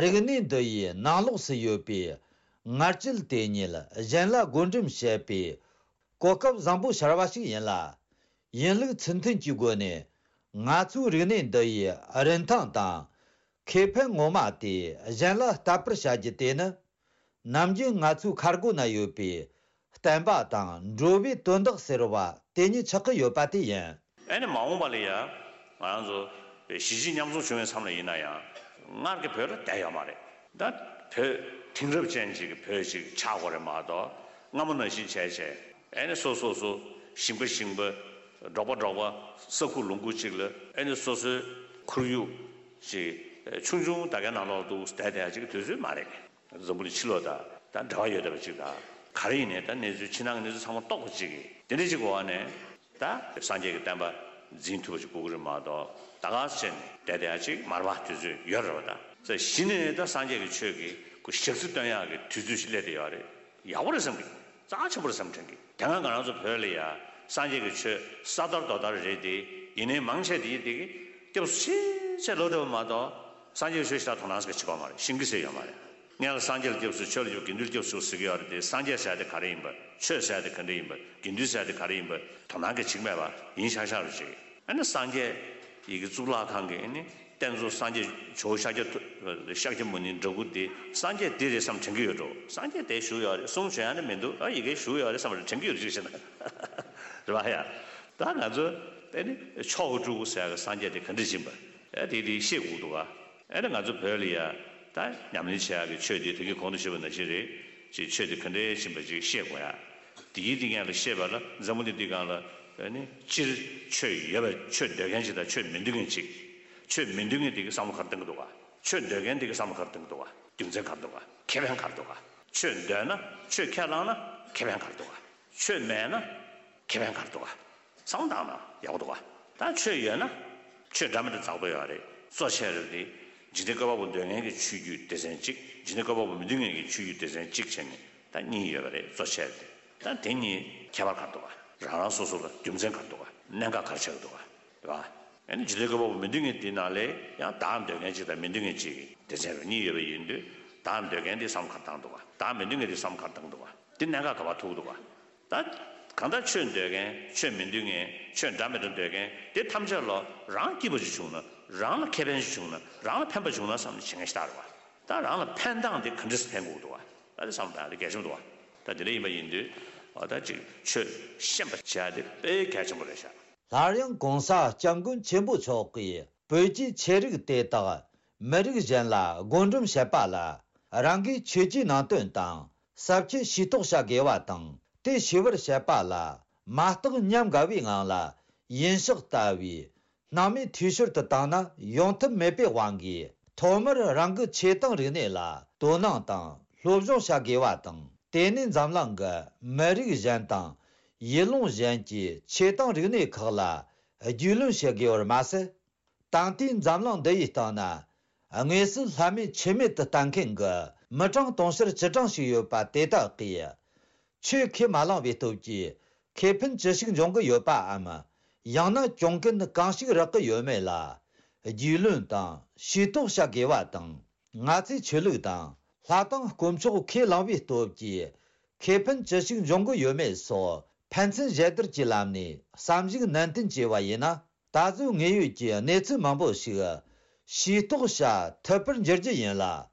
རིག་གནས་འདི་ཡི་ནང་ལོགས་སུ་ཡོད་པའི་ངར་སྐྱེད་དེ་ཉིད་གཞན་ལ་བགོ་འགྲེམས་བྱེད་པའི་གོ་སྐབས་བཟང་པོ་ཤར་བ་ཞིག་ཡིན་ལ། ཡིན་ལུགས་ཚུལ་མཐུན་གྱི་སྒོ་ནས་ང་ཚོའི་རིག་གནས་འདི་ཡི་རིན་ཐང་དང་ཁེ་ཕན་ངོ་མ་དེ་གཞན་ལ་ལྟ་བར་བྱ་རྒྱུ་དེ་ནི། ནམ་རྒྱུན་ང་ཚོའི་ཁ་སྒོ་ན་ཡོད་པའི་བསྟན་པ་དང་འགྲོ་བའི་དོན་དག་ཟེར་བ་དེ་ཉིད་ཆགས་ཀྱི་ཡོད་པ་དེ་ཡིན། ཨེ་ནི་མ་འོངས་པ་ལ་ཡ་ང་རང་ཚོ་གཞིས་བྱེས་མཉམ་འཛོམས་བྱུང་བའི་མཚམས་ལ་ཡིན་ན་ཡང་སྔར་གྱི་བོད་ལ་བསྡད་ཡོད་མ་རེད། ད་བོད་དེང་རབས་ཅན་ཅིག་གི་བོད་ཅིག་ཆགས་དགོས་རེད་མ་གཏོགས། སྔ་མོ་ནང་བཞིན་བྱས་བྱས་ཨེ་ནི་སོ་སོ་སོ་ཞིང་པ་ཞིང་པ་འབྲོག་པ་འབྲོག་པ་ས་ཁུག་ལུང་ཁུག་ཅིག་ལ་ཨེ་ནི་སོ་སོའི་ཁོར་ཡུག་ཅིག་ཆུང་ཆུང་ད་གའི་ནང་ལོགས་འདུག་བསྡད་བསྡད་ཡ་ཅིག་གི་དུས་ཚོད་མ་རེད། འཛམ་བུ་གླིང་ཕྱི་ལོགས་དང་ད་འབྲེལ་བ་ཡོད་བསྡད་པ་ཅིག་དང་། ག་རེ་ཡིན་ནའི་ད་གནས་ཚུལ་ཕྱི་ནང་གི་གནས་ཚུལ་ཚང་མ་རྟོགས་པ་ཅིག་གིས་དེ་འདྲ་ཅིག་གི་འོག་ནས་ད་སངས་རྒྱས་ཀྱི་བསྟན་པ་འཛིན་ཐུབ་པ་ཅིག་དགོས་ཀྱི་རེད་མ་གཏོགས། ད་ག་སེ་བྱས་ནས་བསྡད་བསྡད་ཡ་ཅིག་མ་རེད་པ། དུས་ཚོད་ཡོད་རེད་པ། ད་ས་གཞི་ནས་ད་སངས་རྒྱས་ཀྱི་ཆོས་ཀྱི་ཁོ་ཞག་རྩི་སྟོན་ཡག་གི་དུས་ཚོད་ཅིག་སླེབས་བསྡད་ཡོད་རེད། ཡག་པོ་རེད་བསམ་གི། རྩ་ཆེན་པོ་རེད་བསམ་དྲན་གི། དེ་སྔ་ང་རང་ཚོ་བོད་ལ་ཡ་སངས་རྒྱས་ཀྱི་ཆོས་ས་དར་རྡོ་དར་རེད་དེ། ཡིན་ནའི་མང་ཆེ་དེ་དེ་གི་སྐྱབས་སུ་ཆེས་ཆེ་ལོ་འགྲོ་བ་མ་གཏོགས། སངས་རྒྱས་ཀྱི་ཆོས་ཞེ་དྲག་དོ་སྣང་ཟིག་བྱེད་ཀྱི་ཡོད་མ་རེད། ཤེས་ཀྱི་ཟེར་ཡོད་མ་རེད། སྔོན་ལ་སངས་རྒྱས་ལ་སྐྱབས་སུ་མཆི། ཆོས་ལ་སྐྱབས། དགེ་འདུན་ལ་སྐྱབས་སུ་མཆི་ཟེར་གྱི་ཡོད་རེད་དེ། སངས་རྒྱས་ཟེར་དེ་ག་རེ་ཡིན་པ། ཆོས་ཟེར་དེ་ག་འདྲ་ཡིན་པ། དགེ་འདུན་ཟེར་དེ་ག་རེ་ཡིན་པ་དོ་སྣང་གི་བྱེད་ཀྱི་མེད་པ་ཡིན་ཤག་ཤག་རེད་ཅིག་ཨ་ནི་སངས་རྒྱས་ཡི་གེ་གཙུག་ལག་ཁང་གི་ཨ་ནི་རྟེན་གཙོ་སངས་རྒྱས་ཇོ་བོ་ཤཱཀྱ་ཐུ་ཤཱཀྱ་མུ་ནེའི་འདྲ་སྐུ་དེ་སངས་རྒྱས་དེ་རེད་བསམ་དྲན་གྱི་ཡོད་འགྲོ། སངས་རྒྱས་དེ་བཞུགས་ཡོད་རེད། གསུང་བྱོན་ཡ་ནི་མི་འདུག་ཨ་ཡི་གེ་བཞུགས་ཡོད་རེད་བསམ་རེད་དྲན་གྱི་ཡོད་ཅིག་བྱས་ན། རེད་པ་ཡ། ད་ང་ཚོ་ཨ་ནི་མཆོག་གི་སྤྲུལ་སྐུ་ཟེར་གི་སངས་རྒྱས་དེ་ག་འདྲ་ཡིན་པ་ཨ་དེ་དེ་ཤེས་དགོས་འདུག་ག་ཨ་ནི་ང་ཚོ་བོད་ལ་ཡ་ད་ཉམས་ལེན་བྱེད་ཡག་གི་ཆོས་དེ་དེ་གི་གོང་དུ་ཞུས་པ་ནང་བཞིན་རེད། ཅིག་ཆོས་དེ་ག་འདྲ་ཡིན་པ་ཅིག་ཤེས་དགོས་ཡ། དེའི་སྟེང་ལ་ཤེས་པ་ལ་འཛམ་བུ་གླིང་འདི་སྒང་ལ་ཨ་ནི་སྤྱིར་ཆོས་ཡོད་པ། ཆོས་འདོད་མཁན་ཅིག་དང་ཆོས་མི་འདོད་མཁན་ཅིག་ཆོས་མི་འདོད་མཁན་དེ་གི་བསམ་བློ་ག་རེ་གཏོང་གི་འདུག་ག་ཆོས་འདོད་མཁན་དེ་གི་བསམ་བློ་ག་རེ་གཏོང་གི་འདུག་ག་རྒྱུ་མཚན་ག་རེ་འདུག་ག་ཁེ་ཕན་ག་རེ་འདུག་ག་ཆོས་འདོད་ན། ཆོས་ཁས་བླངས་ན་ཁེ་ཕན་ག་རེ་འདུག་ག་ཆོས་མེད་ན་ཁེ་ཕན་ག་རེ་འདུག་ག་བསམ་བློ་བཏང་ན་ཡག་པོ་འདུག་ག་ད་ཆོས་ཡོད་ན་ཆོས་འདྲ་མི་འདྲ་རྫོགས་པ་ཡོད་རེད། གཙོ་ཆེ་རེད་དེ། འཇིག་རྟེན་བཀོད་པ་པོ་འདོད་མཁན་གྱི་ཆོས་བརྒྱུད་སྡེ་ཚན་གཅིག་འཇིག་རྟེན་བཀོད་པ་པོ་མི་འདོད་མཁན་གྱི་ཆོས་བརྒྱུད་སྡེ་ཚན་གཅིག་བྱས་ནས་ད་གཉིས་ཡོད་པ་རེད། གཙོ་ཆེ་རེད་དེ། ད་དེ་གཉིས་ཁྱད་པར་ག་རེ་འདུག་ག་རང་རང་སོ་སོ་ལ་རྒྱུ་མཚན་ག་རེ་འདུག་ག་གནད་འགག་ག་རེ་ཆགས་ཀྱི་འདུག་ག་རེད་པ། ཨ་ནི་འཇིག་རྟེན་བཀོད་པ་པོ་མི་འདོད་མཁན་དེ་ནང་ལས་ཡང་བདག་འདོད་མཁན་གཅིག་དང་མི་འདོད་མཁན་གཅིག་གི་སྡེ་ཚན་རུ་གཉིས་ཡོད་པ་ཡིན་དུས། བདག་འདོད་མཁན་དེ་བསམ་བློ་ག་རེ་བཏང་འདུག་ག་བདག་མི་འདོད་མཁན་དེ་བསམ་བློ་ག་རེ་བཏང་འདུག་ག་དེ་གནད་འགག་ག་པར་ཐུག་འདུག་ག་ད་གང་ལྟར་ཆོས་འདོད་མཁན། ཆོས་མི་འདོད་མཁན། ཆོས་འདྲ་མི་འདྲ་འདོད་མཁན་དེ་ཐམས་ཅད་ལ་རང་སྐྱིད་པ་ཅིག་བྱུང་ན། རང་ལ་ཁེ་ཕན་ཅིག་བྱུང་ན། རང་ལ་ཕན་པ་བྱུང་ན་བསམ་ནས་བྱེད་མཁན་ཞིག་ལྟར་བ། ད་རང་ལ་ཕན་སྟངས་དེ་ག་འདྲ་སེ་ཕན་དགོས་འདུག་བ། ད་དེ་བསམ་སྟངས་དེ་གལ་ཆེན་པོ་འདུག་བ། ད་དེ་འདྲ་ཡིན་པ་ཡིན་དུས་འོ་ད་ཅིག་ཆོས་ཤེས་པ་བྱ་དེ་དཔེ་གལ་ཆེན་པོ་རེད་ཤག་སླར་ཡང་གོང་ས་སྐྱབས་མགོན་ཆེན་པོ་མཆོག་གིས་བོད་ཀྱི་ཆོས་རིག་དེ་དག་མི་རིགས་གཞན་ལ་བགོ་འགྲེམས་བྱེད་པ་ལ་རང་གིས་ཆོས་ཀྱི་ནང་དོན་དང་ཟབ་ཁྱད་ཤེས་རྟོགས་བྱ་དགོས་པ་དང་། དེ་ཤེས་པར་བྱེད་པ་ལ་མ་བརྟགས་ཉམས་དགའ་བའི་ངང་ལ་ཡིན་ཕྱོགས་ལྟ་བུའི་སྣང་མེད་འཐུས་ཤོར་དུ་བཏང་ན་ཡོང་ཐབས་མེད་པའི་དབང་གིས། ཐོག་མར་རང་གི་ཆོས་དང་རིག་གནས་ལ་དོ་སྣང་དང་སློབ་སྦྱོང་བྱ་དགོས་པ་དང་། དེ་ནས་འཛམ་གླིང་གི་མི་རིགས་གཞན་དང་ཡུལ་ལུང་གཞན་གྱི་ཆོས་དང་རིག་གནས་ཁག་ལ་རྒྱུས་ལོན་བྱེད་དགོས་པར་མ་ཟད། ད་ལྟའི་འཛམ་གླིང་འདི་ཡི་སྟེང་ན་དངོས་སུ་ལྷ་མེད་ཆོས་མེད་དུ་ལྟ་མཁན་གྱི་མི་གྲངས་དུང་ཕྱུར་བཅུ་གྲངས་ཤིག་ཡོད་པ་དེ་དག་གིས་ཆོས་ཁས་མ་བླངས་པའི་སྟོབས་ཀྱིས་ཁེ་ཕན་ཅི་ཞིག་འབྱུང་གི་ཡོད་པའམ། ཡང་ན་གྱོང་གུན་གང་ཞིག་རག་གི་ཡོད་མེད་ལ་རྒྱུས་ལོན་དང་ཤེས་རྟོགས་བྱ་དགོས་པ་དང་། ང་ཚོས་ཆོས་ལུགས་དང་ལྷ་དང་དཀོན་མཆོག་ཁས་བླངས་པའི་སྟོབས་ཀྱིས་ཁེ་ཕན་ཅི་ཞིག་འབྱུང་གི་ཡོད་མེད་སོགས་ཕན་ཚུན་ཞལ་བསྡུར་གྱི་ལམ་ནས་བསམ་གཞིག་ནན་ཏན་བྱས་པ་ཡིན་ན། ད་གཟོད་དངོས་ཡོད་ཀྱི་གནས་ཚུལ་མང་པོ་ཞིག་ཤེས་རྟོགས་བྱ་ཐུབ་པར་འགྱུར་རྒྱུ་ཡིན་ལ།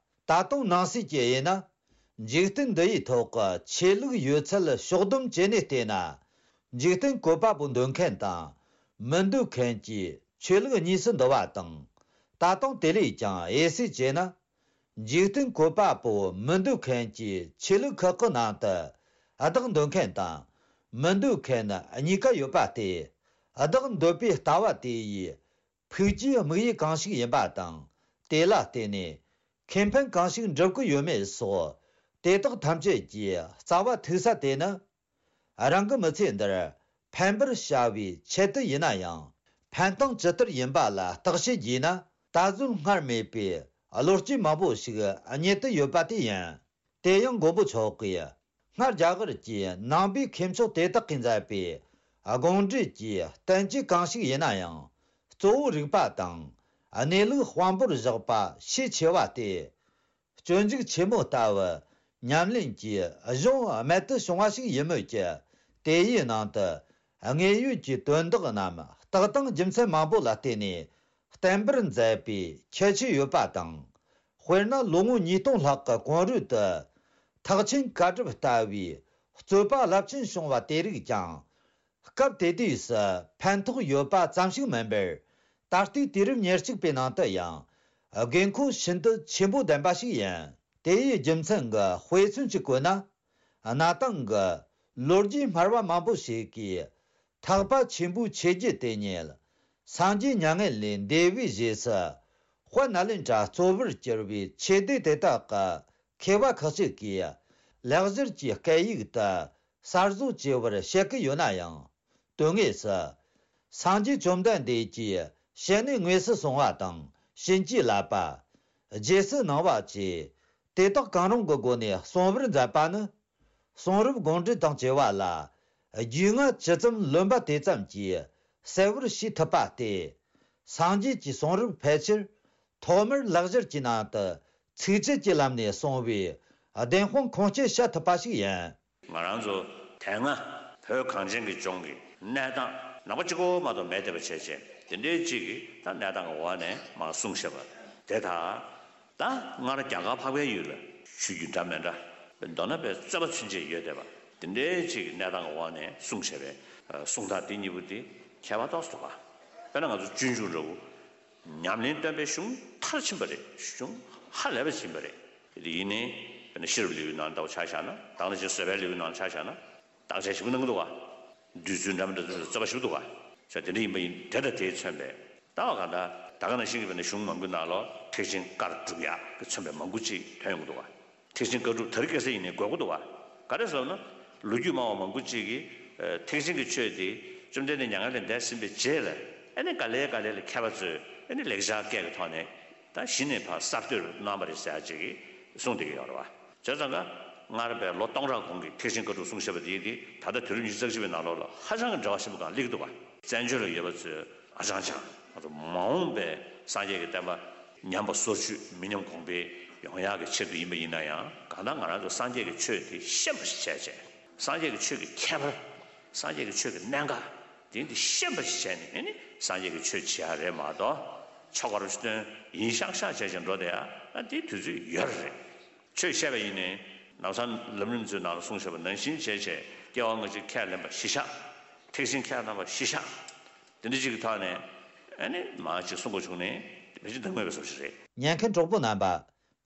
ད་དུང་ནང་གསེས་ཀྱི་ཡིན་ན། འཇིག་རྟེན་འདི་ཡི་ཐོག་གི་ཆོས་ལུགས་ཡོད་ཚད་ཕྱོགས་བསྡོམས་བྱས་ནས་བལྟས་ན། འཇིག་རྟེན་བཀོད་པ་པོ་འདོད་མཁན་དང་མི་འདོད་མཁན་གྱི་ཆོས་ལུགས་གཉིས་སུ་འདུ་བ་དང་། ད་དུང་དེ་ལས་ཀྱང་དབྱེ་གསེས་བྱས་ན། འཇིག་རྟེན་བཀོད་པ་པོ་མི་འདོད་མཁན་གྱི་ཆོས་ལུགས་ཁག་གི་ནང་དུ། བདག་འདོད་མཁན་དང་མི་འདོད་མཁན་གཉིས་ཀ་ཡོད་པ་སྟེ། བདག་འདོད་པའི་ལྟ་བ་དེ་ཡི་ཕུགས་ཀྱི་དམིགས་ཡུལ་གང་ཞིག་ཡིན་པ་དང་། དེ་ལ་བརྟེན་ནས་ཁེ་ཕན་གང་ཞིག་འགྲུབ་ཀྱི་ཡོད་མེད་སོགས། དེ་དག་ཐམས་ཅད་ཀྱི་རྩ་བ་ཐུག་ས་དེ་ནི། རང་གི་མི་ཚེ་འདིར་ཕན་པར་བྱ་བའི་ཆེད་དུ་ཡིན་ན་ཡང་། ཕན་སྟངས་ཇི་ལྟར་ཡིན་པ་ལ་བརྟག་དཔྱད་བགྱིས་ན། ད་གཟོད་སྔར་མེད་པའི་བློ་སྐྱེད་མང་པོ་ཞིག་རྙེད་དུ་ཡོད་པ་དེ་ཡིན། དེ་ཡང་མགོན་པོ་མཆོག་གིས་སྔར་རྒྱ་གར་གྱི་ནང་པའི་མཁས་མཆོག་དེ་དག་གིས་མཛད་པའི་དགོངས་འགྲེལ་གྱི་བསྟན་བཅོས་གང་ཞིག་ཡིན་ན་ཡང་། གཙོ་བོ་རིག་པ་དང་གནས་ལུགས་དཔང་པོར་བཞག་པ་ཤས་ཆེ་བ་སྟེ། སྤྱོད་འཇུག་ཆེན་མོ་ལྟ་བུ་ཉམས་ལེན་གྱི་གཞུང་རྨད་དུ་བྱུང་བ་ཞིག་ཡིན་མོད་ཀྱི། དེ་ཡི་ནང་དུ་དངོས་ཡོད་ཀྱི་དོན་དག་རྣམས་རྟགས་དང་རྒྱུ་མཚན་མང་པོ་ལ་བརྟེན་ནས་བསྟན་པར་མཛད་པའི་ཁྱད་ཆོས་ཡོད་པ་དང་། དཔེར་ན་ལོ་ངོ་ཉིས་སྟོང་ལྷག་གི་གོང་རོལ་དུ་ཐེག་ཆེན་བཀའ་སྒྲུབ་ལྟ་བུའི་རྩོད་པ་རླབས་ཆེན་བྱུང་བ་དེ་རིགས་ཀྱང་། སྐབས་དེ་དུས་སུ་ཕན་ཐོགས་ཡོད་པ་ཙམ་ཞིག་མིན་པར། ད་ལྟའི་དུས་རབས་ཉེར་གཅིག་པའི་ནང་དུ་ཡང་དགོས་མཁོ་ཤིན་ཏུ་ཆེན་པོ་ལྡན་པ་ཞིག་ཡིན། དེ་ཡི་རྒྱུ་མཚན་གྱི་དཔེ་མཚོན་གཅིག་བཀོད་ན། གནའ་དེང་གི་ལོ་རྒྱུས་སྨྲ་བ་མང་པོ་ཞིག་གིས་ཐེག་པ་ཆེན་པོའི་ཆོས་བརྒྱུད་དེ་ཉིད་སངས་རྒྱས་མྱ་ངན་ལས་འདས་པའི་རྗེས་སུ་དཔལ་ནཱ་ལེནྡྲ་གཙོ་བོར་གྱུར་པའི་ཆོས་སྡེ་དེ་དག་གི་མཁས་པ་ཁག་ཅིག་གིས་ལེགས་སྦྱར་གྱི་སྐད་ཡིག་ཏུ་གསར་བཟོ་བྱས་པར་བཤད་ཀྱི་ཡོད་ན་ཡང་། དོན་དངོས་སུ། སངས་རྒྱས་བཅོམ་ལྡན་འདས་ཀྱིས་ཞལ་ནས་དངོས་སུ་གསུངས་པ་དང་བྱིན་གྱིས་བརླབས་པ། རྗེས་སུ་གནང་བ་བཅས་དེ་དག་གང་རུང་གི་སྒོ་ནས་གསུང་བར་མཛད་པ་ནི། གསུང་རབ་དགོངས་འགྲེལ་དང་བཅས་པ་ལ་རྒྱུས་མངའ་ཇི་ཙམ་ལོན་པ་དེ་ཙམ་གྱིས་གསལ་བར་བྱེད་ཐུབ་པ་སྟེ། སངས་རྒྱས་ཀྱི་གསུང་རབ་ཕལ་ཆེར་ཐོག་མར་ལེགས་སྦྱར་གྱི་ནང་དུ་ཚིགས་བཅད་ཀྱི་ལམ་ནས་གསུངས་པའི་བདེན་དཔང་ཁུངས་སྐྱེལ་བྱ་ཐུབ་པ་ཞིག་ཡིན། ང་རང་ཚོ་དེ་སྔ་བོད་གངས་ཅན་གྱི་ལྗོངས་ཀྱི་གནས་སྟངས་ནང་པ་གཅིག་པོ་མ་གཏོགས་མེད་བསྡད་པ་བྱས་བྱས། དེ་འདྲའི་གཅིག་གིས་ད་གནས་སྟངས་ཀྱི་འོག་ནས་མར་གསུངས་བཞག་པ་དེ་དག་ད་སྔར་རྒྱ་གར་འཕགས་པའི་ཡུལ་ལ་ཆོས་བརྒྱུད་འདྲ་མི་འདྲ། མདོར་ན་པའི་རྩོད་པ་ཚུན་ཆད་ཡོད་བསྡད་པ་དེ་འདྲའི་གཅིག་གི་གནས་སྟངས་ཀྱི་འོག་ནས་གསུངས་བཞག་པའི་གསུང་སྟངས་དེ་གཉིས་པོ་དེ་ཁྱད་པར་ཏོག་ཙམ་འདུག་ག། དཔེར་ན་ང་ཚོ་སྤྱོད་འཇུག་འདྲ་བོ། ཉམས་ལེན་སྟོན་པའི་གཞུང་མཐར་ཕྱིན་པ་རེད། གཞུང་ཧ་ལས་པ་ཕྱིན་པ་རེད། དེ་ཡིན་ནའི་དཔེར་ན་ཤེས་རབ་ལེའུའི་ནང་ལྟ་བུ་ཆ་བཞག་ན། ད་ག་ནང་བཞིན་བཟོད་པའི་ལེའུའི་ནང་ཆ་བཞག་ན། བརྟག་དཔྱད་ཞིབ་པོ་གནང་གི་འདུག་ག། བསྡུས་ཚུལ་འདྲ་མི་འདྲ་དེ་ཚོ་རྩོད་པ་ཞིབ་པོ་འདུག་ག། བྱས་དེ་འདྲ་ཡིན་པ་ཡིན། དེ་དང་དེས་མཚོན་པའི་ལྟ་བ་གང་ལྟར་ད་ག་ནང་བཞིན་གྱི་དཔེར་ན་གཞུང་མང་པོའི་ནང་ལོགས་ཐེག་ཆེན་བཀར་སྒྲུབ་ཡག་གིས་མཚོན་པའི་མང་པོ་ཅིག་ཐོན་ཡོང་གི་འདུག་ག། ཐེག་ཆེན་བཀའ་སྒྲུབ་དེ་རིང་ཁ་སང་ཡིན་ནའི་འགོད་ཀྱི་འདུག་ག། ག་རེ་ཟེར་ན། ལོ་རྒྱུས་སྨྲ་བ་མང་པོ་ཅིག་གིས་ཐེག་ཆེན་གྱི་ཆོས་དེ་བཅོམ་ལྡན་འདས་མྱ་ངན་ལས་འདས་ཟིན་པའི་རྗེས་ལ་ཨ་ནི་ག་ལེ་ག་ལེ་ལ་མཁས་པ་ཚོས་ཨ་ནི་ལེགས་སྦྱར་སྐད་ཀྱི་ཐོག་ནས་ད་གཞི་ནས་ཕར་གསར་གཏོད་གནང་བ་རེད་ཟེར་ཡག་ཅིག་གིས་གསུངས་བསྡད་ཀྱི་ཡོད་རེད་བ། བྱས་ཙང་ཀ་སྔར་བས་ལོ་སྟོང་ཕྲག་གོང་གི་ཐེག་ཆེན་བཀའ་སྒྲུབ་གསུང་བཤད་པ་དེ་དེ་ད་ལྟ་དུས་རབས་ཉི་ཤུ་རྩ་གཅིག་པའི་ནང་ལོགས་ལ་ཧ་ཅང་གི་འབྲེལ་བ་ཆེན་པོ་གང་སླེབས་ཀྱི་འདུག་བ། བཙན་བྱོལ་ལ་ཡོད་པ་ཚོས་ཨ་ཅང་ཅང་ང་ཚོ་མ་འོངས་པའི་སངས་རྒྱས་ཀྱི་བསྟན་པ་ཉམས་པ་སོར་ཆུད་མི་ཉམས་གོང་འཕེལ་ཡོང་ཡག་གི་ཆེད་དུ་ཡིན་པ་ཡིན་ན་ཡང་། གང་ལྟར་ང་རང་ཚོ་སངས་རྒྱས་ཀྱི་ཆོས་དེ་ཤེས་པ་ཞིག་བྱས་བྱས། སངས་རྒྱས་ཀྱི་ཆོས་ཀྱི་ཁྱད་པར། སངས་རྒྱས་ཀྱི་ཆོས་ཀྱི་གནད་འགག་དེ་འདི་ཤེས་པ་ཞིག་བྱས་ནས་ཨ་ནི་སངས་རྒྱས་ཀྱི་ཆོས་བྱེད་ཡག་རེད་མ་གཏོགས། ཆོ་ག་རུ་སྟོན་ཡིན་ཤག་ཤག་བྱས་བྱས་འགྲོ་བསྡད་ཡག་ཨ་དེའི་དུས་ཚོད་ཡོད་རེད། ཆོས་བཤད་པ་ཡིན་ནའི་ལམ་སང་ལམ་རིམ་ཚོའི་ནང་ལ་གསུངས་བཞག་པ་ནང་བཞིན་བྱས་བྱས་སྐྱེ་བ་སྔ་ཕྱི་ཁས་ལེན་པ་གཞི་བཞག། ཐེག་ཆེན་ཁས་ལེན་པ་གཞི་བཞག། དེ་འདྲ་ཅིག་གི་ཐོག་ནས་ཨ་ནི་མ་ཅིག་གསུང་དགོས་བྱུང་ནས་དེ་ཅིག་འདང་མེད་པའི་བཟོ་ཞིག་རེད། ཉན་མཁན་གྲོགས་པོ་རྣམ་པ།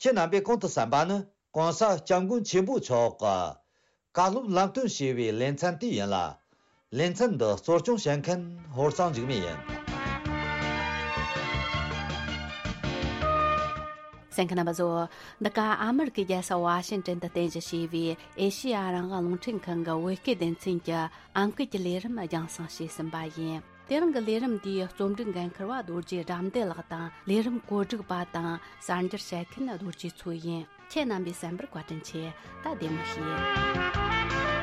ཁྱེད་རྣམ་པས་གོང་དུ་གསན་པ་ནི་༸གོང་ས་༸སྐྱབས་མགོན་ཆེན་པོ་མཆོག་གི་བཀའ་སློབ་ལམ་སྟོན་ཞེས་པའི་ལེ་ཚན་དེ་ཡིན་ལ། ལེ་ཚན་འདི་གཙོ་སྐྱོང་བྱེད་མཁན་ཧོར་གཙང་འཇིགས་མེད་ཡིན། གསན་མཁན་རྣམ་པ་ཚོ། འདི་ག་ཨ་མེ་རི་ཀའི་རྒྱལ་ས་ཝ་ཤིང་ཏོན་དུ་རྟེན་གཞི་བྱས་པའི་ཨེ་ཤེ་ཡ་རང་དབང་རླུང་འཕྲིན་ཁང་གི་བོད་སྐད་སྡེ་ཚན་གྱི་ཨམ་སྐད་ཀྱི་ལས་རིམ་རྒྱང་སྲིང་བྱས་ཟིན་པ་ཡིན། དེ་རིང་གི་ལས་རིམ་འདིའི་རྩོམ་སྒྲིག་འགན་འཁུར་བ་རྡོ་རྗེ་དགྲ་འདུལ་ལགས་དང་། ལས་རིམ་གོ་སྒྲིག་པ་དང་གསར་འགྱུར་བཤད་མཁན་རྡོ་རྗེ་མཚོ་ཡིན། ཁྱེད་རྣམ་པས་གསན་པར་བཀའ་དྲིན་ཆེ། ད་བདེ་མོ་བྱོས།